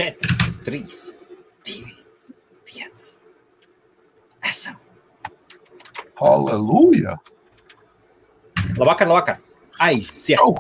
4, 3, 2, 1. Esam. Halleluja! Labvakar. Aiziet! Čau!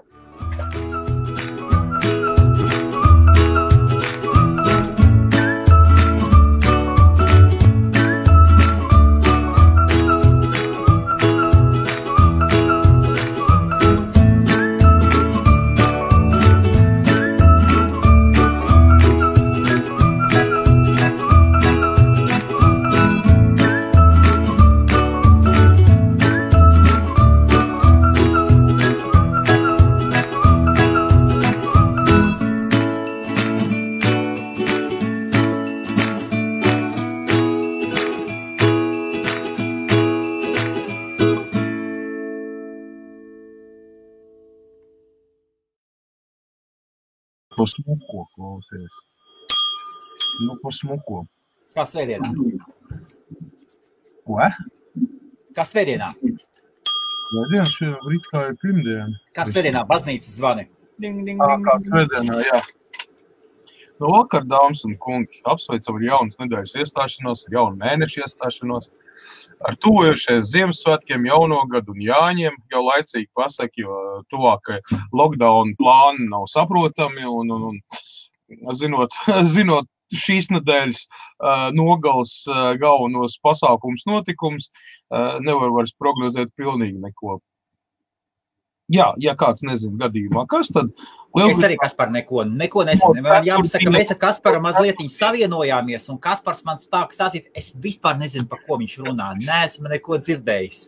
Pa smuko klausies. Pa smuko. Kā svētdienā? Ko? Kā svētdienā? Svētdiena šeit rīt kā ir pirmdiena. Kā svētdienā? Baznīcas zvani. Ding, ding, ding. Kā svētdienā, jā. No vakar, dāmas un kungi, apsveicam ar jaunas nedēļas iestāšanos, ar jaunu mēnešu iestāšanos, ar tuvojušies Ziemassvētkiem, jauno gadu un Jāņiem, jau laicīgi pasaka, jo tuvākai lockdown plāni nav saprotami un zinot šīs nedēļas nogales galvenos pasākums notikums, nevar vairs prognozēt pilnīgi neko. Jā, ja kāds nezina gadījumā, kas tad? Es arī, Kaspar, neko nezinu. Man jāpasaka, ka mēs ar Kasparu mazlietiņu savienojāmies, un Kaspars man stāstīt, es vispār nezinu, par ko viņš runā. Neesmu neko dzirdējis.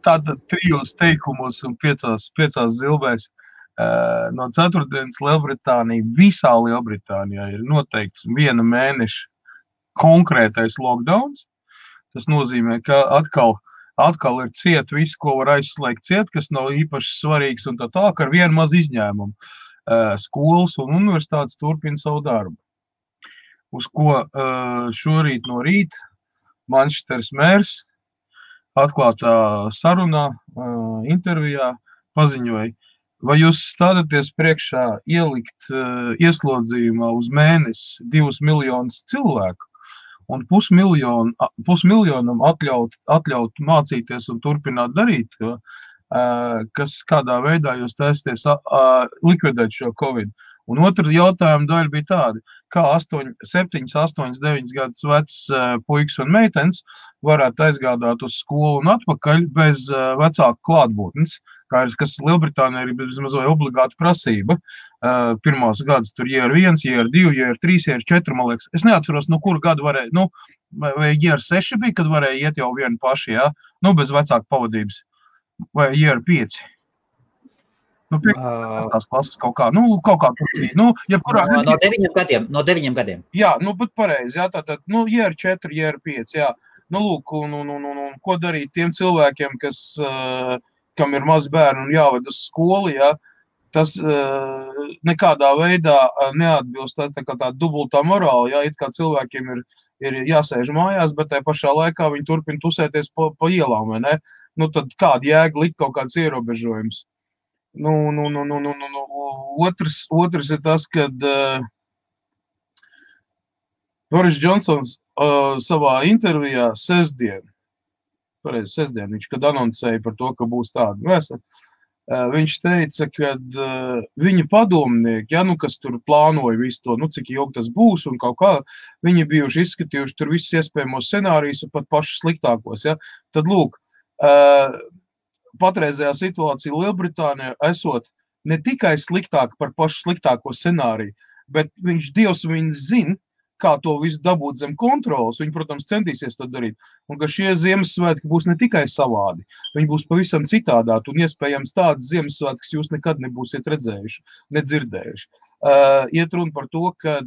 Tātad 3 teikumos un 5 zilbēs no 4. Lielbritānija, visā Lielbritānijā ir noteikts 1 mēneša konkrētais lockdowns. Tas nozīmē, ka atkal ir ciet viss, ko var aizslēgt ciet, kas nav īpaši svarīgs un tā, ka ar vienu maz izņēmumu skolas un universitātes turpina savu darbu. Uz ko šorīt no rīta Manchesteras mērs atklātā sarunā, intervijā paziņoja, vai jūs stādaties priekšā ielikt ieslodzījumā uz mēnesi 2 miljonus cilvēku, un pusmiljonam atļaut mācīties un turpināt darīt, kas kādā veidā jūs taisties likvidēt šo Covid. Un otra jautājuma daļa bija tāda, kā 7, 8, 9 gadus vecs puikas un meitenes varētu aizgādāt uz skolu un atpakaļ bez vecāku klātbūtnes, kas Lielbritānijā ir vismaz obligāta prasība. Pirmās gadus tur year 1, year 2, year 3, year 4, man liekas. Es neatceros, no kura gada varēja, vai year 6 bija, kad varēja iet jau vienu paši, jā? Bez vecāku pavadības. Vai year 5. 5. klases kaut kā tur bija. Jebkurā no 9 gadiem. Jā, bet pareizi, jā, tātad, year 4, year 5, jā. Lūk, un ko darīt tiem cilvēkiem, kam ir maz bērni un jāved uz skolu, jā, tas nekādā veidā neatbilst tā dubultā morāla, jā, it kā cilvēkiem ir jāsēž mājās, bet tai pašā laikā viņi turpina tusēties pa ielām, vai ne? Tad kāda jēga likt kaut kāds ierobežojums? Otrs ir tas, kad Boris Džonsons savā intervijā sestdien, viņš, kad anoncēja par to, ka būs tāda vēsa, viņš teica, ka viņa padomnieki, kas tur plānoja visu to, cik ilgi tas būs un kaut kā, viņi bijuši izskatījuši tur visus iespējamos scenārijus un pat pašus sliktākos, ja. Tad lūk, patreizējā situācija Lielbritānijā esot ne tikai sliktāka par pašu sliktāko scenāriju, bet Dievs viņu zina, kā to visu dabūt zem kontrolas. Viņi, protams, centīsies to darīt. Un ka šie Ziemassvētki būs ne tikai savādi, viņi būs pavisam citādāti un iespējams tādas Ziemassvētkas jūs nekad nebūsiet redzējuši, nedzirdējuši. Iet runa par to, ka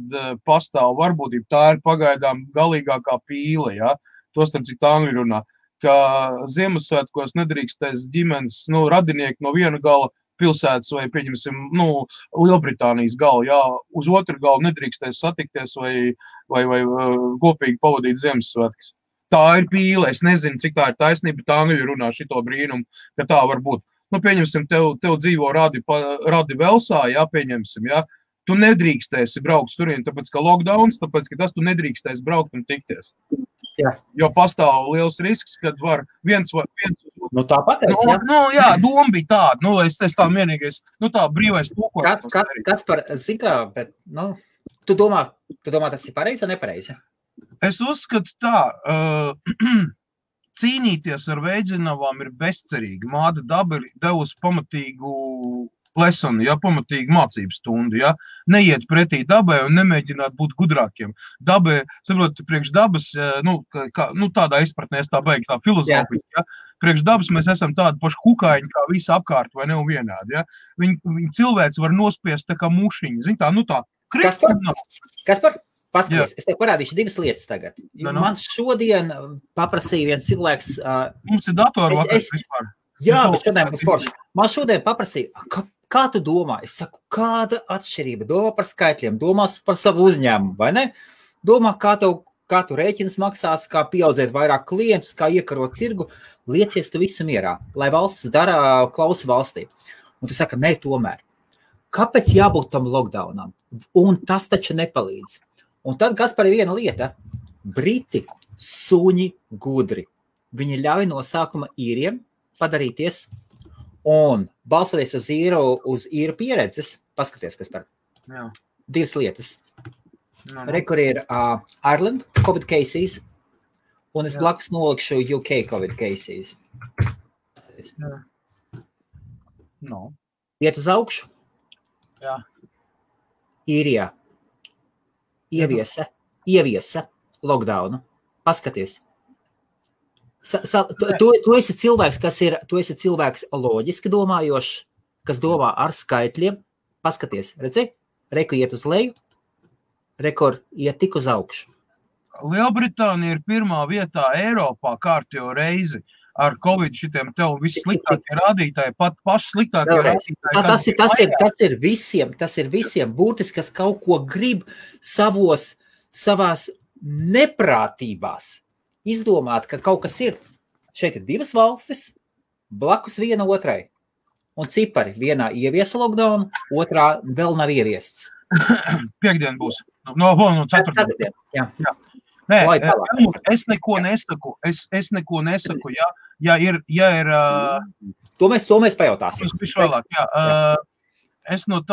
pastāv varbūtība, tā ir pagaidām galīgākā pīle, ja? To starp citu angļu runā, ka Ziemassvētkos nedrīkstēs ģimenes, radinieki no viena gala pilsētas vai, pieņemsim, Lielbritānijas galu, jā, uz otru galu nedrīkstēs satikties vai kopīgi pavadīt Ziemassvētkus. Tā ir pīle, es nezinu, cik tā ir taisnība, tā angļu runā šito brīnumu, ka tā var būt. Pieņemsim, tev dzīvo radi Velsā, jā, pieņemsim, jā, tu nedrīkstēsi braukt turien, tāpēc, ka lockdowns, tāpēc, ka tas tu nedrīkstēsi braukt un tikties. Jā. Jo pastāv liels risks, kad var viens Nu tā pateic, jā. Jā, doma bija tāda, es tā vienīgais, tā brīvais tūkojums. Kas par, zin kā, bet, tu domā, tas ir pareizi vai nepareizi? Es uzskatu tā, cīnīties ar veidzinavām ir bezcerīgi. Māda daba ir devusi pamatīgu lesonu, pamatīgu mācību stundu, neiet pretī dabai un nemēģināt būt gudrākiem. Dabai, saprot, priekš dabas, tādā izpratnē, tā beig tā filozofija, priekš dabas mēs esam tādi paši kukaiņi, kā visi apkārt vai ne un vienādi, Viņi cilvēks var nospiest tā kā mušiņi, tā, Kaspar? Paskaties, es tev parādīšu divas lietas tagad. Man šodien paprasīja viens cilvēks... Mums ir datori vakars vispār. Jā, bet šodien būs forši. Man šodien paprasīja, kā tu domā? Es saku, kāda atšķirība? Domā par skaitļiem, domās par savu uzņēmumu, vai ne? Domā, kā tu rēķinas maksāts, kā pieaudzēt vairāk klientus, kā iekarot tirgu. Liecies tu visu mierā, lai valsts klausa valstī. Un tu saka, nē, tomēr. Kāpēc jābūt tam lockdownam? Un tas taču nepalīdz. Un tad, kas par viena lieta, Briti suņi gudri. Viņi ļauj no sākuma īriem padarīties un balstoties uz īru pieredzes, paskaties, kas par divas lietas. Rekur ir Ireland COVID cases, un es blakus nolikšu UK COVID cases. Iet uz augšu? Jā. Īrijā. Ieviesa lockdownu. Paskaties. Tu esi cilvēks, tu esi cilvēks loģiski domājošs, kas domā ar skaitļiem. Paskaties, redzi? Reku iet uz leju, rekord iet tik uz augšu. Lielbritānija ir pirmā vietā Eiropā kārtējo reizi ar Covid šitiem tev vissliktākie rādītāji, pat paši sliktākie rādītāji. Tas ir visiem būtiski, kas kaut ko grib savās neprātībās izdomāt, ka kaut kas ir. Šeit ir divas valstis, blakus viena otrai. Un cipari vienā ieviesa lockdown, otrā vēl nav ieviests. Piektdien būs. No ceturtdien. Jā. Nē, es neko nesaku, ja ir... To mēs pajautāsim. Es no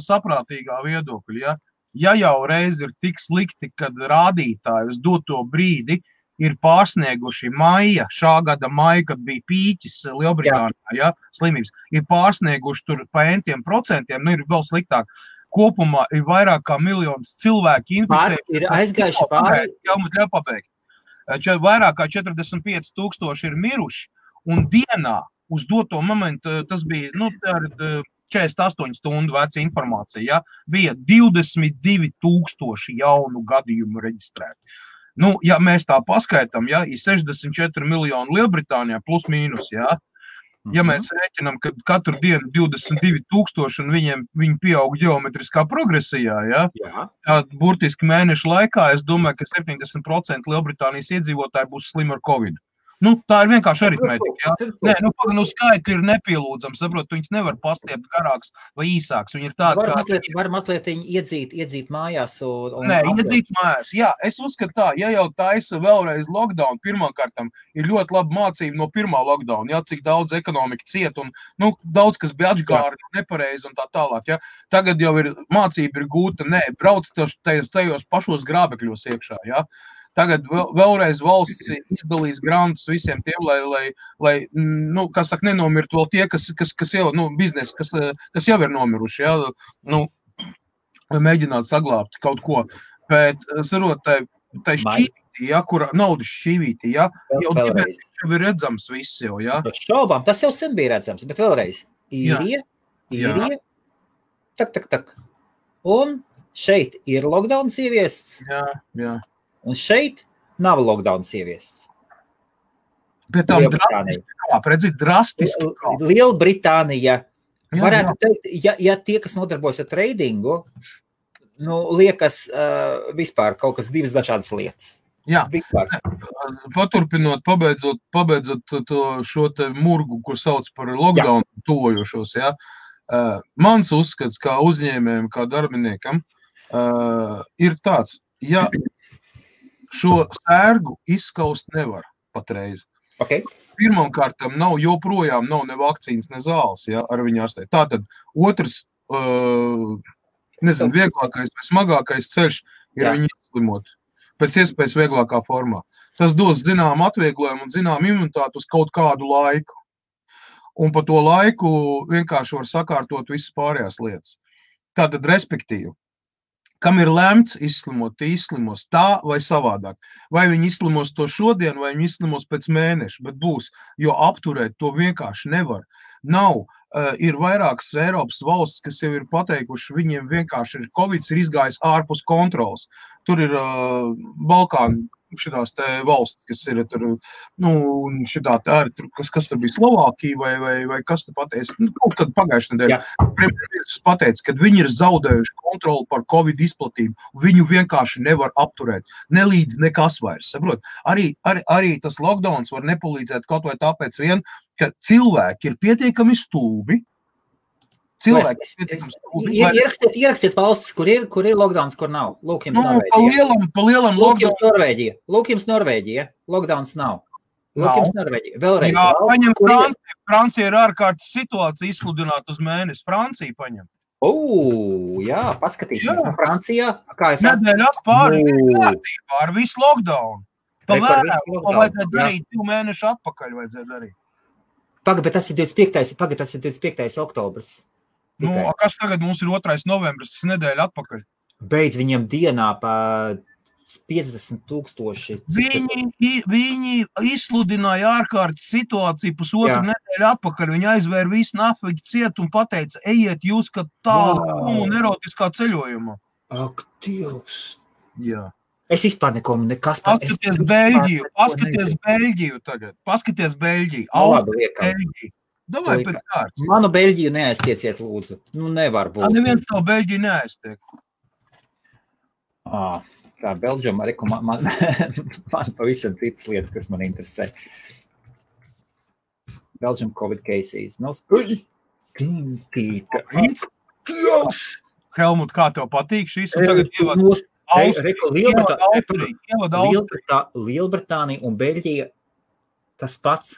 saprātīgā viedokļa, ja jau reiz ir tik slikti, kad rādītāji uz doto brīdi ir pārsnieguši šā gada maija, kad bija pīķis Lielbritānijā, slimības, ir pārsnieguši tur pa entiem procentiem, ir vēl sliktāk. Kopumā ir vairāk kā miljons cilvēki inficēti. Ir aizgājuši pāri. Ļauj pabeigt. Vairāk kā 45,000 ir miruši, un dienā uz doto momentu, tas bija 48 stundu veca informācija, bija 22,000 jaunu gadījumu reģistrēti. Ja mēs tā paskaitām, ir 64 miljoni Lielbritānijā plus mīnus, Ja mēs rēķinām, ka katru dienu 22,000 un viņi pieaug ģeometriskā progresijā, tad burtiski mēnešu laikā es domāju, ka 70% Lielbritānijas iedzīvotāji būs slimi ar Covid. Tā ir vienkārši aritmētika, Nē, skaitļi ir nepielūdzami, saprot, viņas nevar pastiept garāks vai īsāks. Viņi ir tādi, var mazliet iedzīt mājās Nē, iedzīt mājās. Jā, es uzskatu tā, ja jau taisa vēlreiz lockdown, pirmkārtam ir ļoti laba mācība no pirmā lockdown, cik daudz ekonomika ciet un, daudz, kas bija atžgāri, nepareizi un tā tālāk, Tagad jau ir mācība ir gūta, brauc tajos pašos grābekļos iekšā, Tagad vēlreiz valsts izdalīs grantus visiem tiem, lai kā saka, nenomirtu vēl tie, kas jau, biznesi, kas jau ir nomiruši, lai mēģinātu saglābt kaut ko. Bet, sarot, tai šķīvītī, kura naudas šķīvītī, jau ir redzams viss jau, Šaubām, tas jau sen bija redzams, bet vēlreiz. Īrija, tak. Un šeit ir lockdowns ieviests. Jā. Un šeit nav lockdowns ieviests. Bet tam drastiski. Lielbritānija. Varētu teikt, ja tie, kas nodarbojas ar tradingu, liekas vispār kaut kas divas dažādas lietas. Jā, paturpinot, pabeidzot šo te murgu, ko sauc par lockdown tuvojošos, Mans uzskats kā uzņēmējiem, kā darbiniekam, ir tāds, ja šo sērgu izskaust nevar patreiz. Okay. Pirmkārtam joprojām nav ne vakcīnas, ne zāles, ja, ar viņu ārstēt. Tātad otrs, vieglākais vai smagākais ceļš ir viņu izslimot. Pēc iespējas vieglākā formā. Tas dos zinām atvieglojumu un zinām imunitāti uz kaut kādu laiku. Un pa to laiku vienkārši var sakārtot visas pārējās lietas. Tātad, respektīvi, kam ir lemts izslimot, tie izslimos tā vai savādāk. Vai viņi izslimos to šodien, vai viņi izslimos pēc mēneša, bet būs, jo apturēt to vienkārši nevar. Nav, ir vairākas Eiropas valsts, kas jau ir pateikuši, viņiem vienkārši Covid ir izgājis ārpus kontrols. Tur ir Balkāni, šitās te valsts, kas ir tur, šitā tā ir, kas tur bija Slovākija vai kas te pateica, kaut kad pagājušajā nedēļā. Premjerministrs pateica, ka viņi ir zaudējuši kontroli par Covid izplatību, viņu vienkārši nevar apturēt, nelīdz nekas vairs, saprot? Arī tas lockdowns var nepalīdzēt kaut vai tāpēc vien, ka cilvēki ir pietiekami stulbi. Ierakstiet valstis, kur ir lockdowns, kur nav. Lūk jums Norvēģija. Pa lielam lockdowns. Lūk jums Norvēģija. Lockdowns nav. Lūk jums Norvēģija. Vēlreiz. Jā, paņem Franciju. Francija ir ārkārtas situācija izsludināt uz mēnesi. Francija paņem. Jā, paskatīsimies. Francijā. Kā ir Francija? Nedēļa atpāri kārtībā ar visu lockdown. Vajadzētu darīt 2 mēnešu atpakaļ vajadzētu darīt. Bet tas ir 25. oktobrs. Kas tagad mums ir 2. novembris, tas nedēļa atpakaļ? Beidz viņam dienā pa 50,000. Viņi izsludināja ārkārtas situāciju pusotru nedēļu atpakaļ. Viņi aizvēra visu nafīgi ciet un pateica, ejiet jūs, ka tādu un erotiskā ceļojumā. Ak, Dievs! Jā. Es vispār nekas Paskaties Beļģiju tagad. Paskaties Beļģiju. Beļģiju. Davai pēc kārtas. Manu Beļģiju neaiztieciet, lūdzu. Nevar būt. Neviens tavu Beļģiju neaiztiek. Tā Beļģuma arī, man pavisam citas lietas, kas man interesē. Belgium Covid cases. Helmut, kā tev patīk šīs? Lielbritānija un Beļģija tas pats.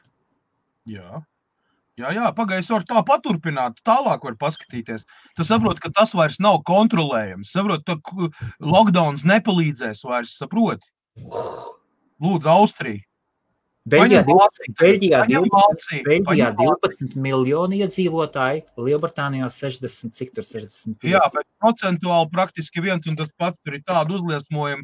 Jā, pagājis var tā paturpināt, tālāk var paskatīties. Tu saproti, ka tas vairs nav kontrolējams. Saproti, ka lockdowns nepalīdzēs vairs, saproti. Lūdzu, Austrija. Beļģijā 12 miljoni iedzīvotāji, Lielbritānijā 60, cik tur 65. Jā, bet procentuāli praktiski viens un tas pats tur ir tādu uzliesmojumu.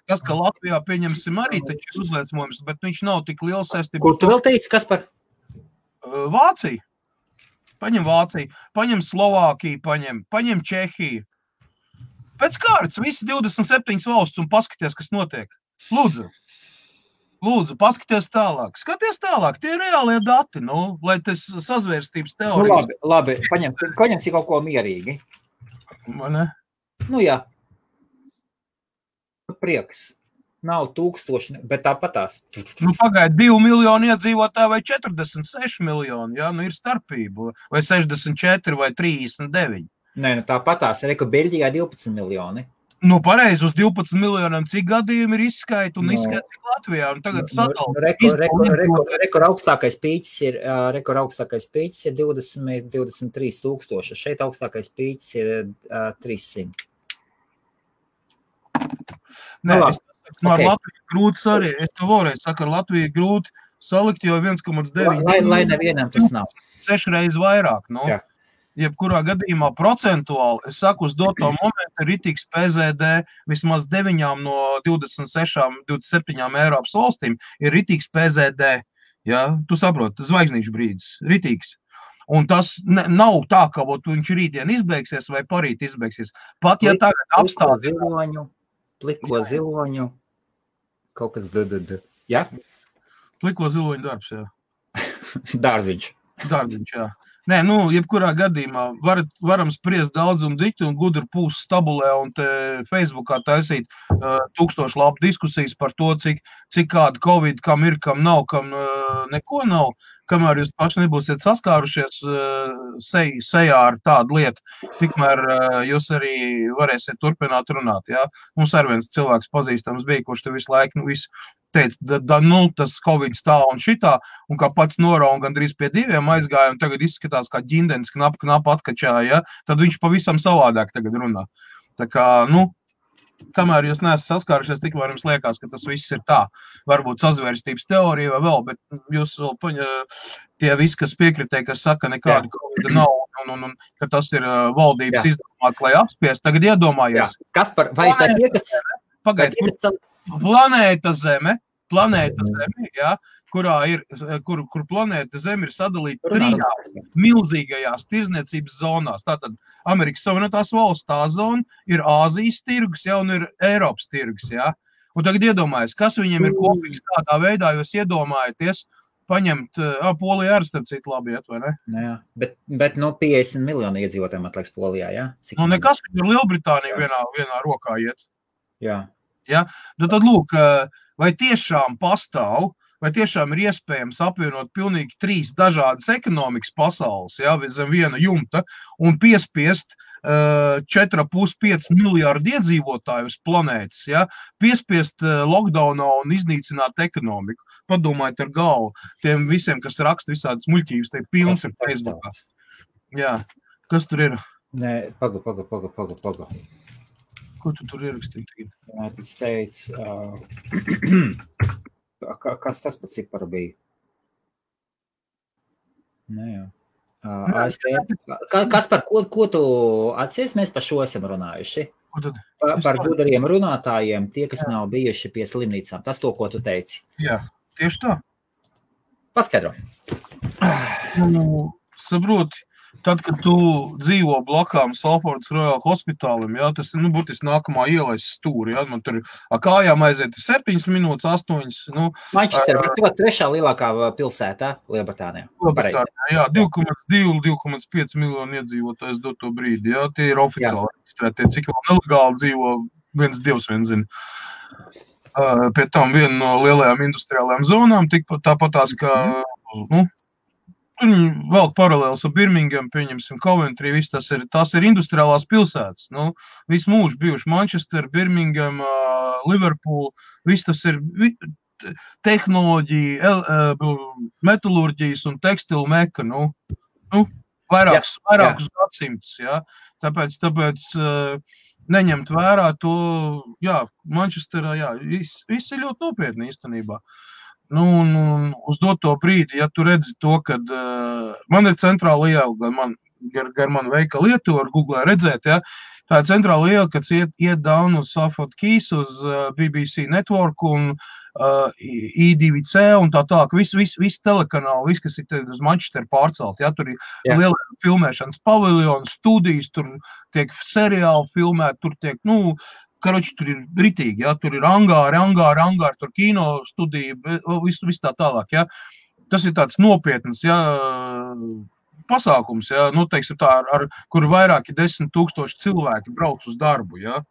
Tas, ka Latvijā pieņemsim arī taču ir uzliesmojums, bet viņš nav tik liels saistībā. Kur tu vēl teici, kas par? Vācija. Paņem Vāciju, paņem Slovākiju, paņem Čehiju. Pēc kārtas visi 27 valsts un paskaties, kas notiek. Lūdzu, paskaties tālāk. Skaties tālāk, tie ir reālie dati, lai tas sazvērstības teorijas. Labi, paņemsi kaut ko mierīgi. Vai ne? Jā. Prieks. Nav 1000, bet tāpatās. Pagaid 2 miljoni iedzīvotāji vai 46 miljoni, ir starpība. Vai 64 vai 39. Nē, tāpatās. Beļģijā 12 miljoni. Pareizi, uz 12 miljoniem cik gadījumi ir izskaita un izskaita cik Latvijā. Un tagad Rekord augstākais pīķis ir 23 tūkstoši. Šeit augstākais pīķis ir 300. Ar Latviju grūti arī. Es to vēlreiz saku, ar Latviju grūti salikt, jo 1,9. Lai nevienam tas nav. 6 reizes vairāk. Jebkurā gadījumā procentuāli, es saku, uz doto momentu ir ritīgs PZD, vismaz 9 no 26, 27 Eiropas valstīm ir ritīgs PZD. Tu saproti, zvaigznīšu brīdis, ritīgs. Un tas nav tā, ka viņš rītdien izbeigsies vai parīt izbeigsies. Pat, ja tagad apstāties. Pliko ziloņu, kaut kas jā? Pliko ziloņu darbs, jā. Dārziņš, jā. Nē, jebkurā gadījumā varam spriest daudz un dikti un gudri pūs stabulē un te Facebookā taisīt 1000 labu diskusijas par to, cik kāda Covid, kam ir, kam nav, kam neko nav. kamēr jūs paši nebūsiet saskārušies sejā ar tādu lietu, tikmēr jūs arī varēsiet turpināt runāt, jā. Mums ar viens cilvēks pazīstams bija, kurš te visu laiku, visu teica, tas Covid stāv un šitā, un kā pats norau un gandrīz pie 2 aizgāja, un tagad izskatās kā ģindens knapu atkačāja, ja? Tad viņš pavisam savādāk tagad runā. Tā kā, kamēr jūs neesat saskārušies, tikmēr jums liekas, ka tas viss ir tā. Varbūt sazvērstības teorija vai vēl, bet jūs vēl tie visi, kas piekritē, kas saka, nekādu Covid nav, un ka tas ir valdības izdomāts, lai apspiest, tagad iedomājies. Kaspar, vai tā tie, kas... Planēta Zeme, jā, kur planēta Zeme ir sadalīta 3 milzīgajās tirzniecības zonās. Tātad Amerikas Savienotās valsts tā zona ir Āzijas tirgus, jā, un ir Eiropas tirgus, jā. Un tagad iedomājies, kas viņiem ir kopīgs kādā veidā, jūs iedomājaties paņemt, Polijā ar starp citu labi iet, vai ne? Jā, bet 50 miljoni iedzīvotājiem atlaiks Polijā, jā? Nekas, ka ir Lielbritānija vienā rokā iet. Jā. Ja? Tad lūk, vai tiešām pastāv, vai tiešām ir iespējams apvienot pilnīgi 3 dažādas ekonomikas pasaules, ja, zem viena jumta, un piespiest 4,5 miljārdu iedzīvotāju uz planētas, ja, piespiest lockdownā un iznīcināt ekonomiku. Padomājiet ar galvu tiem visiem, kas raksta visādas muļķības, te pilns ir Facebookā. Jā, kas tur ir? Nē, paga. Ko tu tur ierakstīji tagad? Jā, tas teica, kas tas par ciparu bija? Nē, jā. Kas par ko tu atcies? Mēs par šo esam runājuši. Par gudariem runātājiem, tie, kas nav bijuši pie slimnīcām. Tas to, ko tu teici. Jā, tieši tā. Paskaidro. Saproti. Tad, kad tu dzīvo blakām Salfordas Royal Hospitālim, jā, tas ir, burtiski nākamā ielais stūri, jā, man tur kājām aiziet 7 minūtes, 8, Manchester, bet tev 3. lielākā pilsētā Lielbritānijā. Jā, 2,5 miljonu iedzīvotājs dot to brīdi, jā, tie ir oficiāli reģistrētie, cik vēl nelegāli dzīvo, viens Dievs vien zina. Pie tam viena no lielajām industriālajām zonām, tāpatās, ka, vēl paralēls ar Birmingham, pieņemsim Coventry, viss tās ir industriālās pilsētas. Visu mūžu bijuši Manchester, Birmingham, Liverpool, viss tas ir tehnoloģija, metalurģijas un tekstilu meka, vairākus gadsimtus, jā. Tāpēc neņemt vērā to, jā, Manchesterā, jā, viss ir ļoti nopietni īstenībā. Un uz doto brīdi, ja tu redzi to, kad man ir centrāla iela, gar manu veikalu ietu var Googlē redzēt, ja, tā ir centrāla iela, kad iet down uz Salford Keys, uz BBC Network un I2C un tā, viss telekanāli, viss, kas ir uz Manchester pārcelt, ja, tur ir liela filmēšanas paviljons, studijas, tur tiek seriāli filmēt, tur tiek, karoči, tur ir ritīgi, ja, tur ir angāri, tur kino studija, viss tā tālāk, ja. Tas ir tāds nopietns, ja, pasākums, ja, teiksim tā, kur vairāki 10 000 cilvēki brauc uz darbu, ja.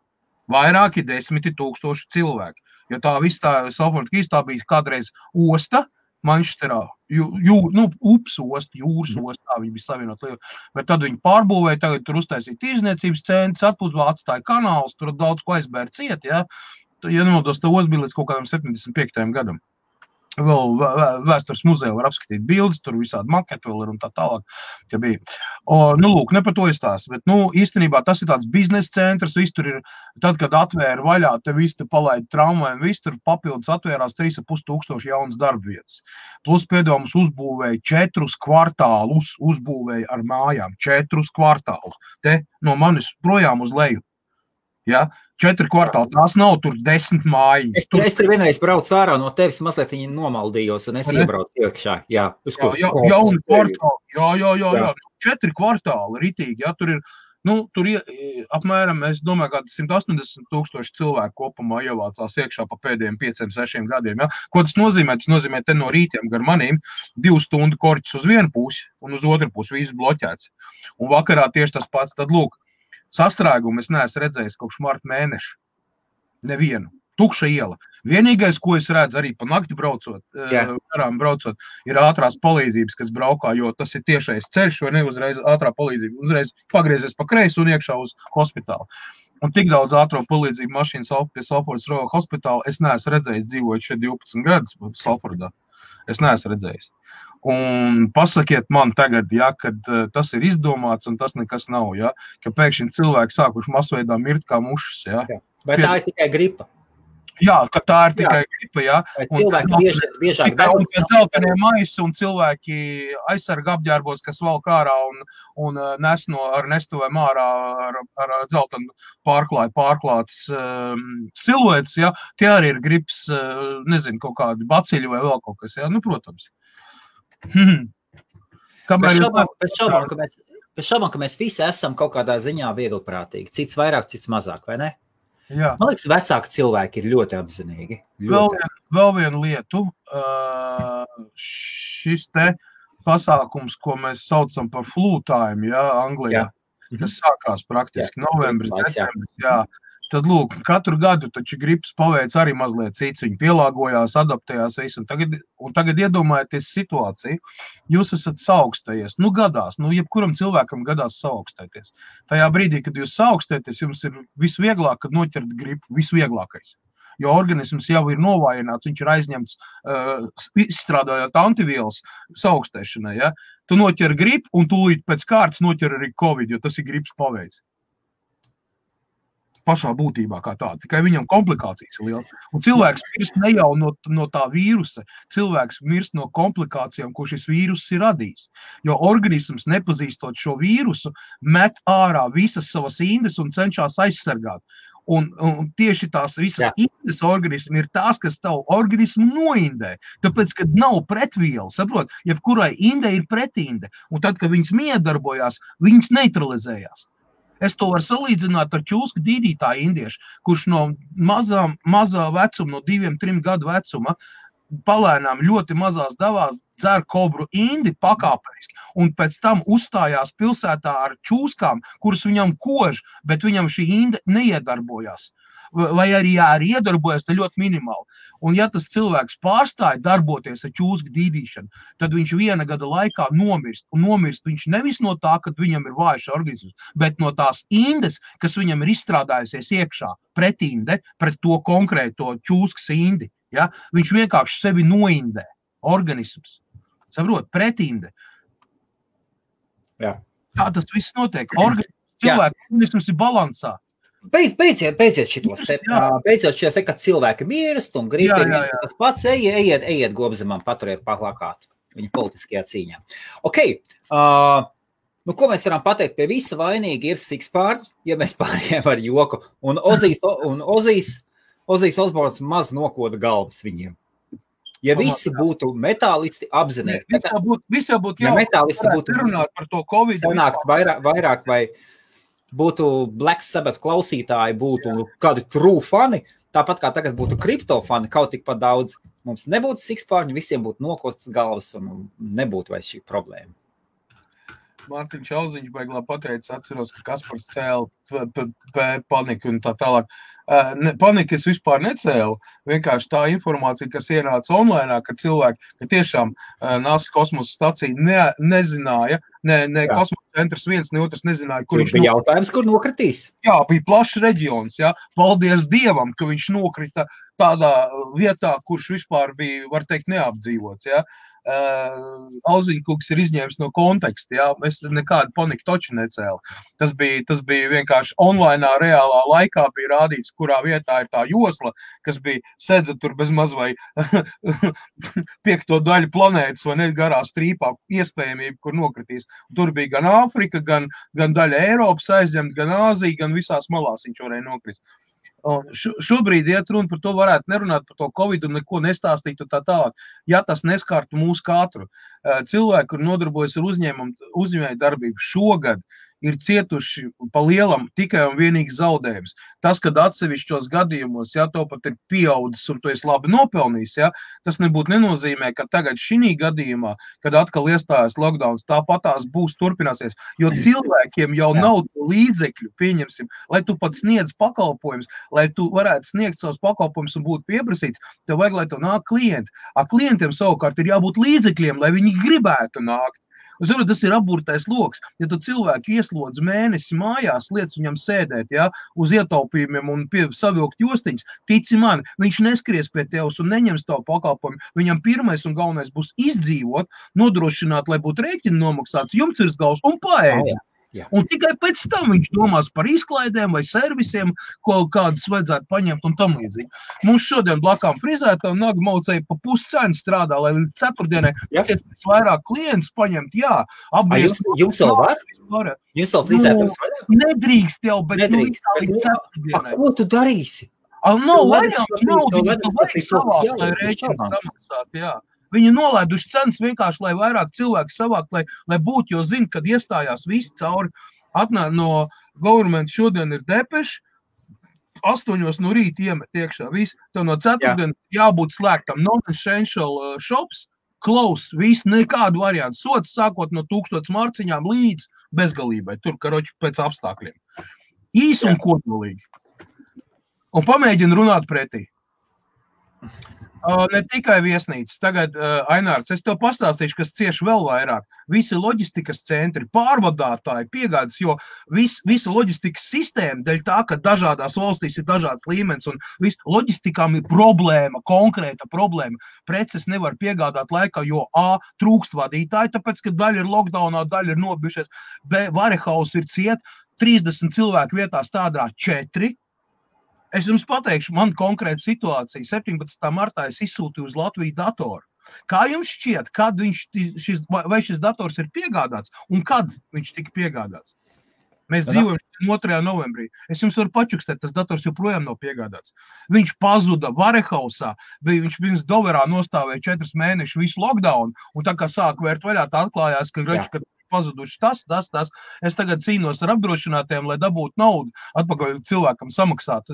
Vairāki 10 000 cilvēki. Jo tā viss tā Salford Keys, tā bija kādreiz osta, Manchesterā, ups osta, jūras osta, tā viņi bija savienot lietu. Bet tad viņi pārbūvēja, tagad tur uztaisīja tirzniecības centrs, atpūtībā atstāja kanālus, tur daudz ko aizbēr ciet, ja. Ja nemaldos, tā osta bija līdz kaut kādam 75. gadam. Vēl vēstures muzeja var apskatīt bildes, tur visādi maketi vēl ir un tā tālāk, ka bija. Lūk, ne par to izstāst, bet, īstenībā tas ir tāds biznesa centrs, viss tur ir, tad, kad atvēra vaļā, te viss te palaida tramvajiem, viss tur papildus atvērās 3,5 jaunas darbvietas. Plus pēdējums uzbūvēja 4 kvartālus, uzbūvēja ar mājām, 4 kvartālus, te no manis projām uz leju. Ja? 4 kvartāli, tās nav tur 10 mājiņas. Es tur vienreiz braucu ārā no tevis, mazliet viņi nomaldījos, un es iebraucu iekšā. Jā, jauni kvartāli, jā. 4 kvartāli ritīgi, ja? Tur ir, apmēram, es domāju, kādi 180 000 cilvēku kopumā ievācās iekšā pa pēdējiem 5-6 gadiem, ja? Ko tas nozīmē? Tas nozīmē, te no rītiem gar manīm 2 stundu korķis uz vienu pusi, un uz otru pusi visu bloķēts. Un vakarā tieši tas pats, tad lūk, sastrēgumu es neesmu redzējis kopš marta mēneša. Nevienu. Tukša iela. Vienīgais, ko es redzu arī pa nakti braucot, garām braucot, ir ātrās palīdzības, kas braukā, jo tas ir tiešais ceļš, vai ne uzreiz ātrā palīdzība, uzreiz pagriezies pa kreisi un iekšā uz hospitālu. Un tik daudz ātro palīdzību mašīnas pie Salfordas Royal hospitāla es neesmu redzējis, dzīvojot šeit 12 gadus Salfordā. Es neesmu redzējis. Un pasakiet man tagad, ja, kad tas ir izdomāts un tas nekas nav, ja, ka pēkšņi cilvēki sākuši masveidā mirt kā mušas. Ja. Vai tā ir tikai gripa? Jā, ka tā ir tikai gripa, jā. Vai cilvēki biežāk darbojas. Un dzeltenie maisi un cilvēki aizsarga apģērbos, kas valk ārā un nes ar nestuvēm ārā ar dzeltenu pārklāts siluetes, jā. Tie arī ir gripas, nezinu, kaut kādi baciļi vai vēl kaut kas, jā. Nu, protams. Pēc šaubām, ka mēs visi esam kaut kādā ziņā vieglprātīgi. Cits vairāk, cits mazāk, vai ne? Jā. Man liekas, vecāki cilvēki ir ļoti apzinīgi. Vēl vienu lietu. Šis te pasākums, ko mēs saucam par flu time, jā, Anglijā, kas sākās praktiski novembris, decembris, jā. Tad, lūk, katru gadu taču gripas paveic arī mazliet cits, viņi pielāgojās, adaptējās visu, un tagad iedomājieties situāciju, jūs esat saaugstējies, nu gadās, nu jebkuram cilvēkam gadās saaugstēties. Tajā brīdī, kad jūs saaugstēties, jums ir visvieglāk, kad noķert gripu, visvieglākais. Jo organisms jau ir novājināts, viņš ir aizņemts, izstrādājot antivielas saaugstēšanai, ja? Tu noķer gripu, un tūlīt pēc kārtas noķer arī Covid, jo tas ir gripas paveic. Pašā būtībā kā tā, tikai viņam komplikācijas ir liels. Un cilvēks mirst ne jau no tā vīrusa, cilvēks mirst no komplikācijām, ko šis vīrus ir radījis. Jo organisms, nepazīstot šo vīrusu, met ārā visas savas indes un cenšas aizsargāt. Un tieši tās visas indes organismi ir tās, kas tavu organismu noindē. Tāpēc, kad nav pretviela, saprot, jebkurai indē ir pretinde. Un tad, kad viņas miedarbojās, viņas neutralizējās. Es to varu salīdzināt ar čūsku dīdītāju indiešu, kurš no mazā vecuma, no 2-3 gadu vecuma, palēnām ļoti mazās davās dzer kobru indi pakāpeniski, un pēc tam uzstājās pilsētā ar čūskām, kuras viņam kož, bet viņam šī inde neiedarbojās. Vai arī iedarbojas, te ļoti minimāli. Un ja tas cilvēks pārstāja darboties ar čūsku dīdīšanu, tad viņš 1 gada laikā nomirst. Un nomirst viņš nevis no tā, kad viņam ir vājš organisms, bet no tās indes, kas viņam ir izstrādājusies iekšā, pretinde, pret to konkrēto čūskas indi. Ja? Viņš vienkārši sevi noindē, organisms. Saprot, pretinde. Jā. Tā tas viss notiek. Organisms ir balansā. Beidziet šitos te, kad cilvēki mirst un grib tas pats, ejiet Gobzemam, paturiet plakātu viņa politiskajā cīņā. Ok, nu ko mēs varam pateikt, pie visa vainīgi ir Sikspārņi, ja mēs pārējām ar joku, un Ozijs Osborns maz nokoda galvas viņiem. Ja visi būtu metālisti apzinīgi, visi jau būtu metālisti būtu runāt par to Covid, sanākt vairāk vai būtu Black Sabbath klausītāji, būtu kādi true fani, tāpat kā tagad būtu kripto fani, kaut tik pat daudz. Mums nebūtu Sikspārņi, visiem būtu nokostas galvas un nebūtu vairs šī problēma. Mārtiņš Auziņš beiglā pateica, atceros, ka Kaspars cēla paniku un tā tālāk. Paniku es vispār necēlu, vienkārši tā informācija, kas ienāca online, ka cilvēki, ka tiešām NASA kosmosa stacija nezināja, ne kosmosa centrs viens, ne otrs nezināja, kur viņš bija jautājums, kur nokritīs. Jā, bija plašs reģions, jā. Paldies Dievam, ka viņš nokrita tādā vietā, kurš vispār bija, var teikt, neapdzīvots, jā. Auziņkungs ir izņēmis no konteksta, jā, es nekādu paniku toču necēlu. Tas bija vienkārši online, reālā laikā bija rādīts, kurā vietā ir tā josla, kas bija sedza tur bez maz vai 5. daļu planētas vai ne garā strīpā iespējamība, kur nokritīs. Tur bija gan Āfrika, gan daļa Eiropas aizņemt, gan Āzija, gan visās malās viņš varēja nokrist. Šobrīd iet runa par to, varētu nerunāt par to Covid un neko nestāstīt un tā tālāk, ja tas neskārtu mūsu katru. Cilvēki, kur nodarbojas ar uzņēmēju darbību šogad, ir cietuši pa lielam tikai un vienīgi zaudējums. Tas, kad atsevišķos gadījumos, ja to pat ir pieaudzis un tu esi labi nopelnījis, ja, tas nebūtu nenozīmē, ka tagad šī gadījumā, kad atkal iestājas lockdowns, tāpatās būs turpināsies, jo cilvēkiem jau nav līdzekļu, pieņemsim, lai tu pat sniedz pakalpojumus, lai tu varētu sniegt savus pakalpojumus un būtu pieprasīts, tev vajag, lai tu nāk klienti. Klientiem savukārt ir jābūt līdzekļiem, lai viņi gribētu nākt. Tas ir apburtais loks. Ja tu cilvēku ieslodz mēnesi mājās, liec viņam sēdēt, ja, uz ietaupījumiem un savilkt jostiņas, tici man, viņš neskries pie tevs un neņems tavu pakalpojumu. Viņam pirmais un galvenais būs izdzīvot, nodrošināt, lai būtu rēķini nomaksāts, jumts virs galvas un paēdz. Jā. Un tikai pēc tam viņš domās par izklaidēm vai servisiem, ko kādas vajadzētu paņemt un tam līdzīgi. Mums šodien blakām frizētā un Naga Maucēja pa puscenu strādā, lai līdz ceturtdienai pēc vairāk klientus paņemt, jā. Jums vēl var? Jums vēl frizētājums vaļā? Nedrīkst jau, bet līdz ceturtdienai. Ko tu darīsi? Nav vaļā, tu vajag savāk, lai rēķins samaksāt, jā. Viņi nolaiduši cenas vienkārši, lai vairāk cilvēku savākt, lai būtu, jo zina, kad iestājās visi cauri. Atnāk no government šodien ir depeši, 8 no rīta iemet iekšā. Tev no ceturtdien jābūt slēgtam. Non-essential shops, close, viss, nekādu variantu. Sots sākot no 1000 marciņām līdz bezgalībai, tur, karoči, pēc apstākļiem. Īs un kodolīgi. Un pamēģina runāt pretī. Ne tikai viesnīcas. Tagad, Ainārs, es tev pastāstīšu, kas cieši vēl vairāk. Visi loģistikas centri, pārvadātāji, piegādes, jo visa loģistikas sistēma, dēļ tā, ka dažādās valstīs ir dažāds līmenis un loģistikām ir problēma, konkrēta problēma. Preces nevar piegādāt laikā, jo A, trūkst vadītāji, tāpēc, ka daļa ir lockdownā, daļa ir nobijušies. B, warehouse ir ciet, 30 cilvēku vietā strādā 4. Es jums pateikšu, man konkrēta situācija. 17. martā es izsūtīju uz Latviju datoru. Kā jums šķiet, kad vai šis dators ir piegādāts un kad viņš tika piegādāts? Mēs dzīvojam 2. novembrī. Es jums varu pačukstēt, tas dators joprojām nav piegādāts. Viņš pazuda Varehausā, viņš pirms Doverā nostāvēja 4 mēnešus visu lockdown, un tā kā sāk vērt vaļā, tā atklājās, ka pazuduši tas. Es tagad cīnos ar apdrošinātiem, lai dabūtu naudu atpakaļ cilvēkam samaksāt,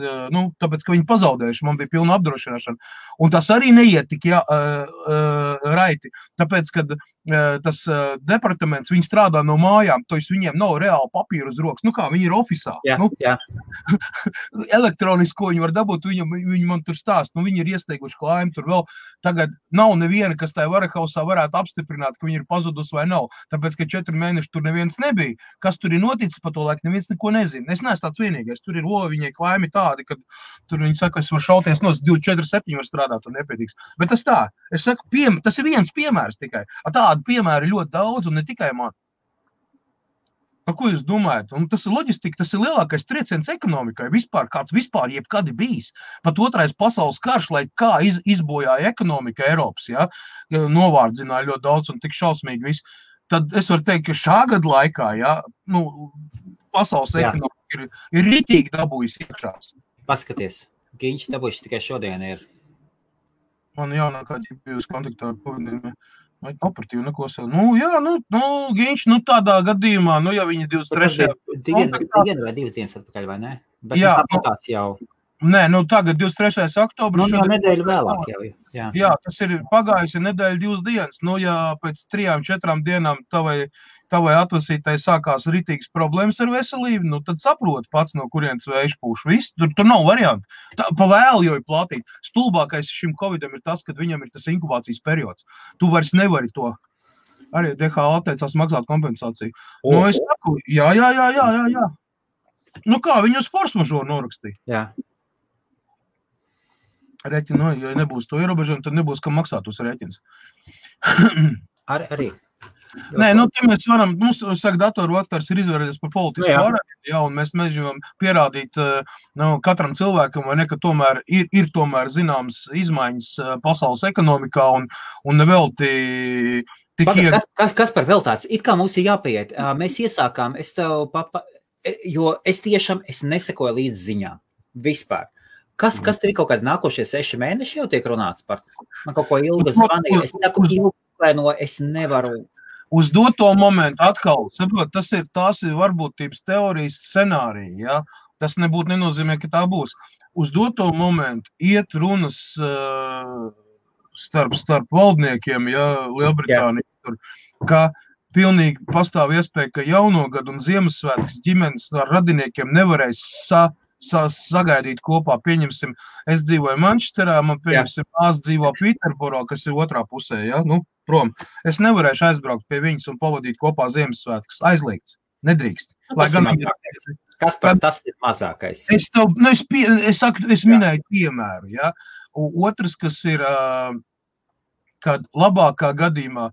tāpēc, ka viņi pazaudējuši, man bija pilna apdrošināšana. Un tas arī neiet tik raiti, tāpēc, kad tas departaments, viņi strādā no mājām, to viņiem nav reāli papīru uz rokas. Kā viņi ir ofisā. Jā. Elektronisko viņi var dabūt, viņi man tur stāst, viņi ir iesteiguši klājumu, tur vēl tagad nav neviena, kas tajā Varehausā varētu apstiprināt, ka viņi ir pazudus vai nav, tāpēc, ka 4 mēneši tur neviens nebija. Kas tur ir noticis pa to laiku, neviens neko nezina. Es neesmu tāds vienīgais. Tur ir viņai klājumi tādi, kad tur viņi saka, es varu šauties no 24/7 var strādāt un nepietiks. Bet tas tā. Es saku, tas ir viens piemērs tikai. Tādu piemēru ļoti daudz un ne tikai man. Par ko jūs domājat? Un tas ir loģistika, tas ir lielākais trieciens ekonomikai. Kāds vispār jebkad ir bijis. Pat 2. pasaules karš, lai kā izbojāja ekonomika Eiropas, novārdzināja ļoti daudz un tik šausmīgi viss. Tad es varu teikt, ka šā gada laikā, pasaules ekonomika ir ritīgi dabūjusi iekšās. Paskaties, Giņš dabūjuši tikai šodien ir. Man jaunākā ģipījus kontaktā ar pavadījumiem. Vai operatīvi neko sev. Giņš, tādā gadījumā, ja viņi 23. Dienu vai 2 dienas atpakaļ, vai ne? Bet tāpatās jau. Nē, tagad 23. oktobris. Nedēļu vēlāk jau. Jā, tas ir pagājusi nedēļa 2 dienas. Ja pēc 3-4 dienām tavai atvasītai sākās ritīgas problēmas ar veselību, tad saproti pats, no kurienes vējš pūš. Viss, tur nav variantu. Pa vēlu jau ir platīt. Stulbākais šim Covidam ir tas, kad viņam ir tas inkubācijas periods. Tu vairs nevari to. Arī DHA atteicās maksāt kompensāciju. Es saku, jā. Kā, viņu uz force majeure norakstīja. Jā. Rēķinu, ja nebūs to ierobežojumu, tad nebūs, kam maksāt uz rēķins. Arī. Nē, te mēs varam, saka, datoru vaktars ir izvērties par politisku varētu, un mēs mēģinām pierādīt katram cilvēkam, vai ne, ka tomēr ir tomēr zināms izmaiņas pasaules ekonomikā, un nevelti Kas par vēl tāds? It kā mums ir jāpieiet. Mēs iesākām, jo es tiešām nesekoju līdz ziņām. Vispār. Kas tur ir kaut kādi nākošie 6 mēneši jau tiek runāts par? Man kaut ko ilgi zvanīja. Es saku, ilgi, es nevaru. Uz doto momentu atkal, saprot, tās ir varbūtības teorijas scenārija, ja? Tas nebūtu nenozīmē, ka tā būs. Uz doto momentu iet runas starp valdniekiem, ja, Lielbritānija, tur, ka pilnīgi pastāv iespēja, ka jauno gadu un Ziemassvētkus ģimenes ar radiniekiem nevarēs sagaidīt kopā. Pieņemsim, es dzīvoju Manchesterā, man pieņemsim, māsa dzīvo Pīterboro, kas ir otrā pusē, ja, nu, prom. Es nevarēšu aizbraukt pie viņas un pavadīt kopā Ziemassvētkus. Aizliegts, nedrīkst. Lai gan kas par tas ir mazākais? Es minēju piemēru, ja. Otrs, kas ir, kad labākā gadījumā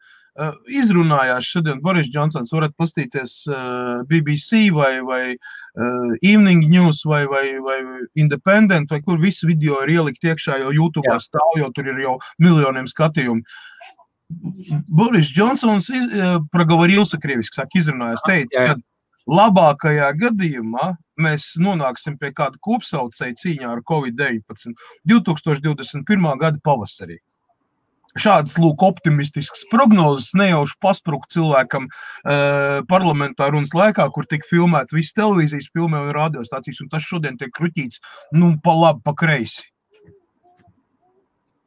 izrunājās šodien Boris Džonsons, varat pastīties BBC vai Evening News vai Independent, vai kur visi video ir ielikt iekšā, jo YouTube'ā stāv, jo tur ir jau miljoniem skatījumu. Boris Džonsons проговорился krieviski, izrunājās, teica, ka labākajā gadījumā mēs nonāksim pie kāda kopsaucēja cīņā ar Covid-19 2021. Gada pavasarī. Šādas, lūk, optimistiskas prognozes nejauši pasprukt cilvēkam parlamentā runas laikā, kur tika filmēti visi televīzijas filmē un radiostācijas, un tas šodien tiek kruķīts, nu, pa labi, pa kreisi.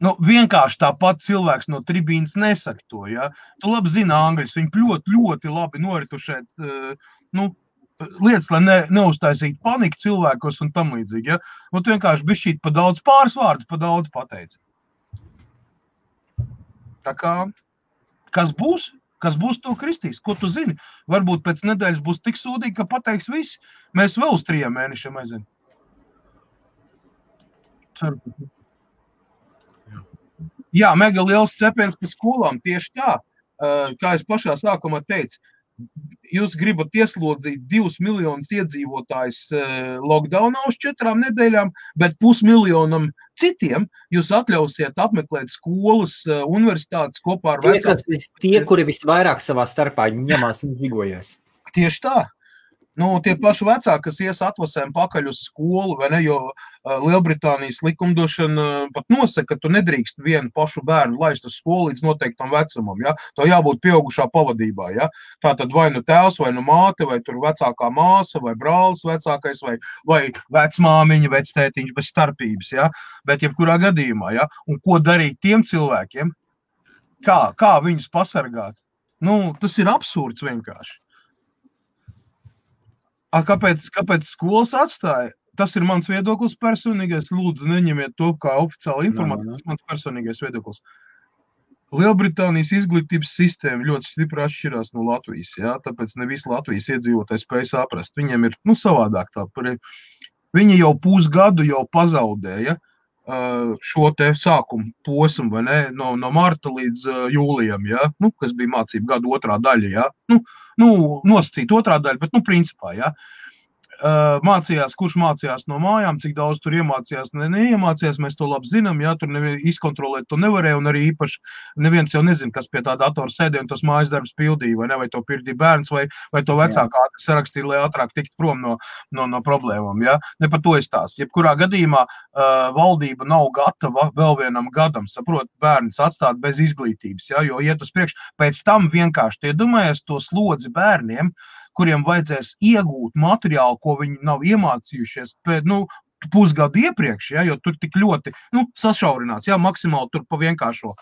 Nu, vienkārši tāpat cilvēks no tribīnas nesaka to, ja. Tu labi zini angļus, viņi ļoti, ļoti labi noritušēt, nu, lietas, lai neuztaisītu paniku cilvēkos un tam līdzīgi, ja. Un tu vienkārši bišķīt pa daudz pāris vārdus, pa daudz pateici. Tā kā, kas būs, to kristīs, ko tu zini? Varbūt pēc nedēļas būs tik sūdīgi, ka pateiks visi. Mēs vēl uz 3 mēnešiem aizinu. Ceru. Jā, mega liels cepiens pa skolām, tieši tā, kā es pašā sākumā teicu, jūs gribat ieslodzīt 2 miljonus iedzīvotājus lockdownā uz 4 nedēļām, bet 500 000 citiem jūs atļausiet apmeklēt skolas, universitātes kopā ar vecākiem. Tie, kuri visvairāk savā starpā ņemās un žigojās. Tieši tā. Nu, tie paši vecāki, kas ies atvasēm pakaļ uz skolu, vai ne, jo Lielbritānijas likumdošana pat nosaka, ka tu nedrīkst vienu pašu bērnu laist uz skolu līdz noteiktam vecumam, ja? To jābūt pieaugušā pavadībā, ja? Tātad vai nu tēvs, vai nu māte, vai tur vecākā māsa, vai brālis vecākais, vai vecmāmiņa, vectētiņš bez starpības, ja? Bet jebkurā gadījumā, ja? Un ko darīt tiem cilvēkiem? Kā viņus pasargāt? Nu, tas ir absurds vienkārši. Kāpēc skolas atstāja? Tas ir mans viedoklis personīgais. Lūdzu, neņemiet to kā oficiāla informācija. Tas ir mans personīgais viedoklis. Lielbritānijas izglītības sistēma ļoti stipri atšķirās no Latvijas. Ja? Tāpēc ne visi Latvijas iedzīvotāji spēj saprast. Viņiem ir savādāk tā. Viņi jau pusgadu jau pazaudēja šo te sākumu posmu, vai ne? No marta līdz jūlijam, ja? Nu, kas bija mācību gadu otrā daļa. Ja? Nosacīt otrā daļa, bet, principā, ja, kurš mācījās no mājām, cik daudz tur iemācījās, neiemācījās, mēs to labi zinām, ja, tur izkontrolēt to nevarēja, un arī īpaši neviens jau nezina, kas pie tā datora sēdē un tos mājas darbs pildīja, vai ne, vai to pildīja bērns, vai to vecākā sarakstīja, lai ātrāk tikt prom no problēmām, ja, ne par to izstāst. Jebkurā gadījumā valdība nav gatava vēl vienam gadam, saprot, bērns atstāt bez izglītības, ja, jo iet uz priekšu, pēc tam vienkārši tie domājies to slodzi bērniem, kuriem vajadzēs iegūt materiālu, ko viņi nav iemācījušies pusgadu iepriekš, ja, jo tur tik ļoti sašaurināts, ja, maksimāli tur pa vienkāršo,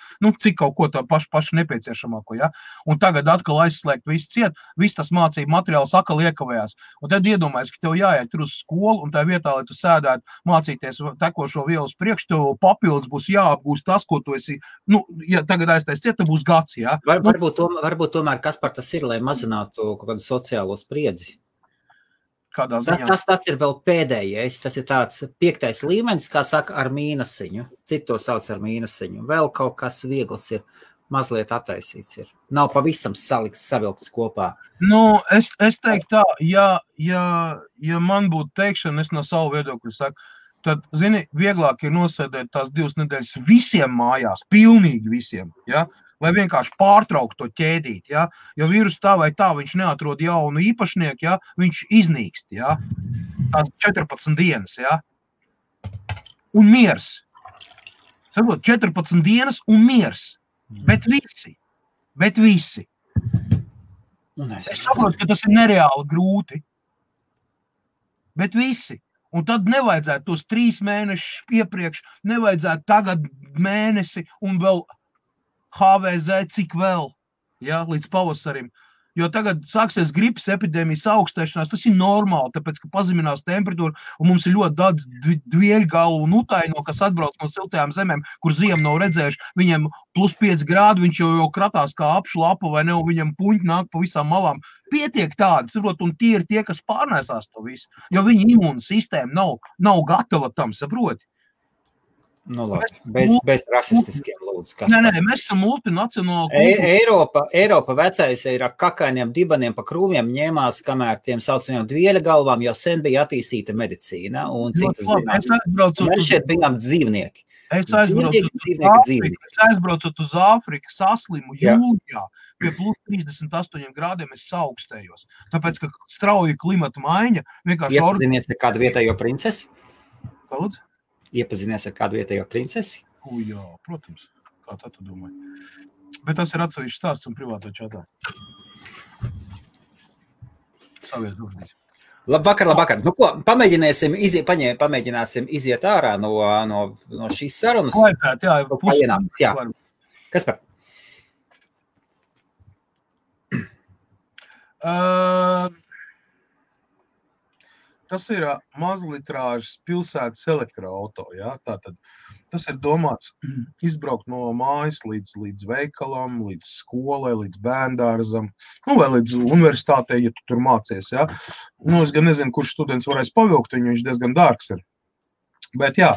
cik kaut ko tā pašu nepieciešamāko, ja, un tagad atkal aizslēgt visu ciet, viss tas mācību materiāls atkal iekavējās, un tad iedomājies, ka tev jāiet tur uz skolu, un tā vietā, lai tu sēdētu mācīties tekošo vielu uz priekš, tev papildus būs jāapgūst tas, ko tu esi, ja tagad aiztais ciet, tev būs gads, ja. Varbūt tomēr kas par tas ir, lai mazinātu kaut kādu sociālo spriedzi? Tas ir vēl pēdējais, tas ir tāds 5. līmenis, kā saka, ar mīnusiņu. Citi to sauc ar mīnusiņu. Vēl kaut kas viegls ir, mazliet attaisīts ir. Nav pavisam savilkts kopā. Es teiktu tā, ja man būtu teikšana, es no savu viedokļu saku, tad, zini, vieglāk ir nosēdēt tās 2 nedēļas visiem mājās, pilnīgi visiem, ja? Lai vienkārši pārtraukt to ķēdīt, ja? Jo vīrus tā vai tā, viņš neatrod jaunu īpašnieku, ja? Viņš iznīkst, ja? Tās 14 dienas, ja? Un miers. Saprot, 14 dienas un miers. Bet visi. Es saprotu, ka tas ir nereāli grūti. Bet visi. Un tad nevajadzētu tos 3 mēnešus iepriekš, nevajadzētu tagad mēnesi un vēl HVZ cik vēl, ja, līdz pavasarim. Jo tagad sāksies gripas epidēmijas augstēšanās, tas ir normāli, tāpēc, ka pazeminās temperatūra, un mums ir ļoti daudz dvieļgalu un utaino, kas atbrauc no siltajām zemēm, kur ziemu nav redzējuši, viņiem +5 grādi, viņš jau kratās kā apšlapa, vai ne, un viņam puņi nāk pa visām malām. Pietiek tādi, saprot, un tie ir tie, kas pārnēsās to visu, jo viņa imūna sistēma nav gatava tam, saproti. Nu, labi, bez rasistiskiem lūdzu. Nē, mēs esam multinacionāli. Eiropa vecais ir ar kakainiem dibaniem pa krūmiem ņēmās, kamēr tiem saucamiem dvieļa galvām jau sen bija attīstīta medicīna un citas zinātnes. Mēs šeit bijām dzīvnieki. Es aizbraucot uz Āfriku, saslimu jūlijā, pie +38 grādiem es saaugstējos. Tāpēc, ka strauja klimata maiņa vienkārši... Iepazinies ar kādu vietējo princesi? Kāds? Iepazinies ar kādu vietējo princesi? Jā, protams. Kā tā tu domāji? Bet tas ir atsevišķs stāsts un privātā čatā. Savies dūrdīs. Labvakar. Nu ko, pamēģināsim iziet ārā no šīs sarunas. Laipēt, jā. Kas par? Tas ir mazlitrāžas pilsētas elektroauto, ja? Tātad tas ir domāts izbraukt no mājas līdz veikalam, līdz skolai, līdz bērndārzam, vai līdz universitātei, ja tu tur mācies, ja? Es gan nezinu, kurš students varēs pavilkt, viņš diezgan dārgs ir. Bet jā,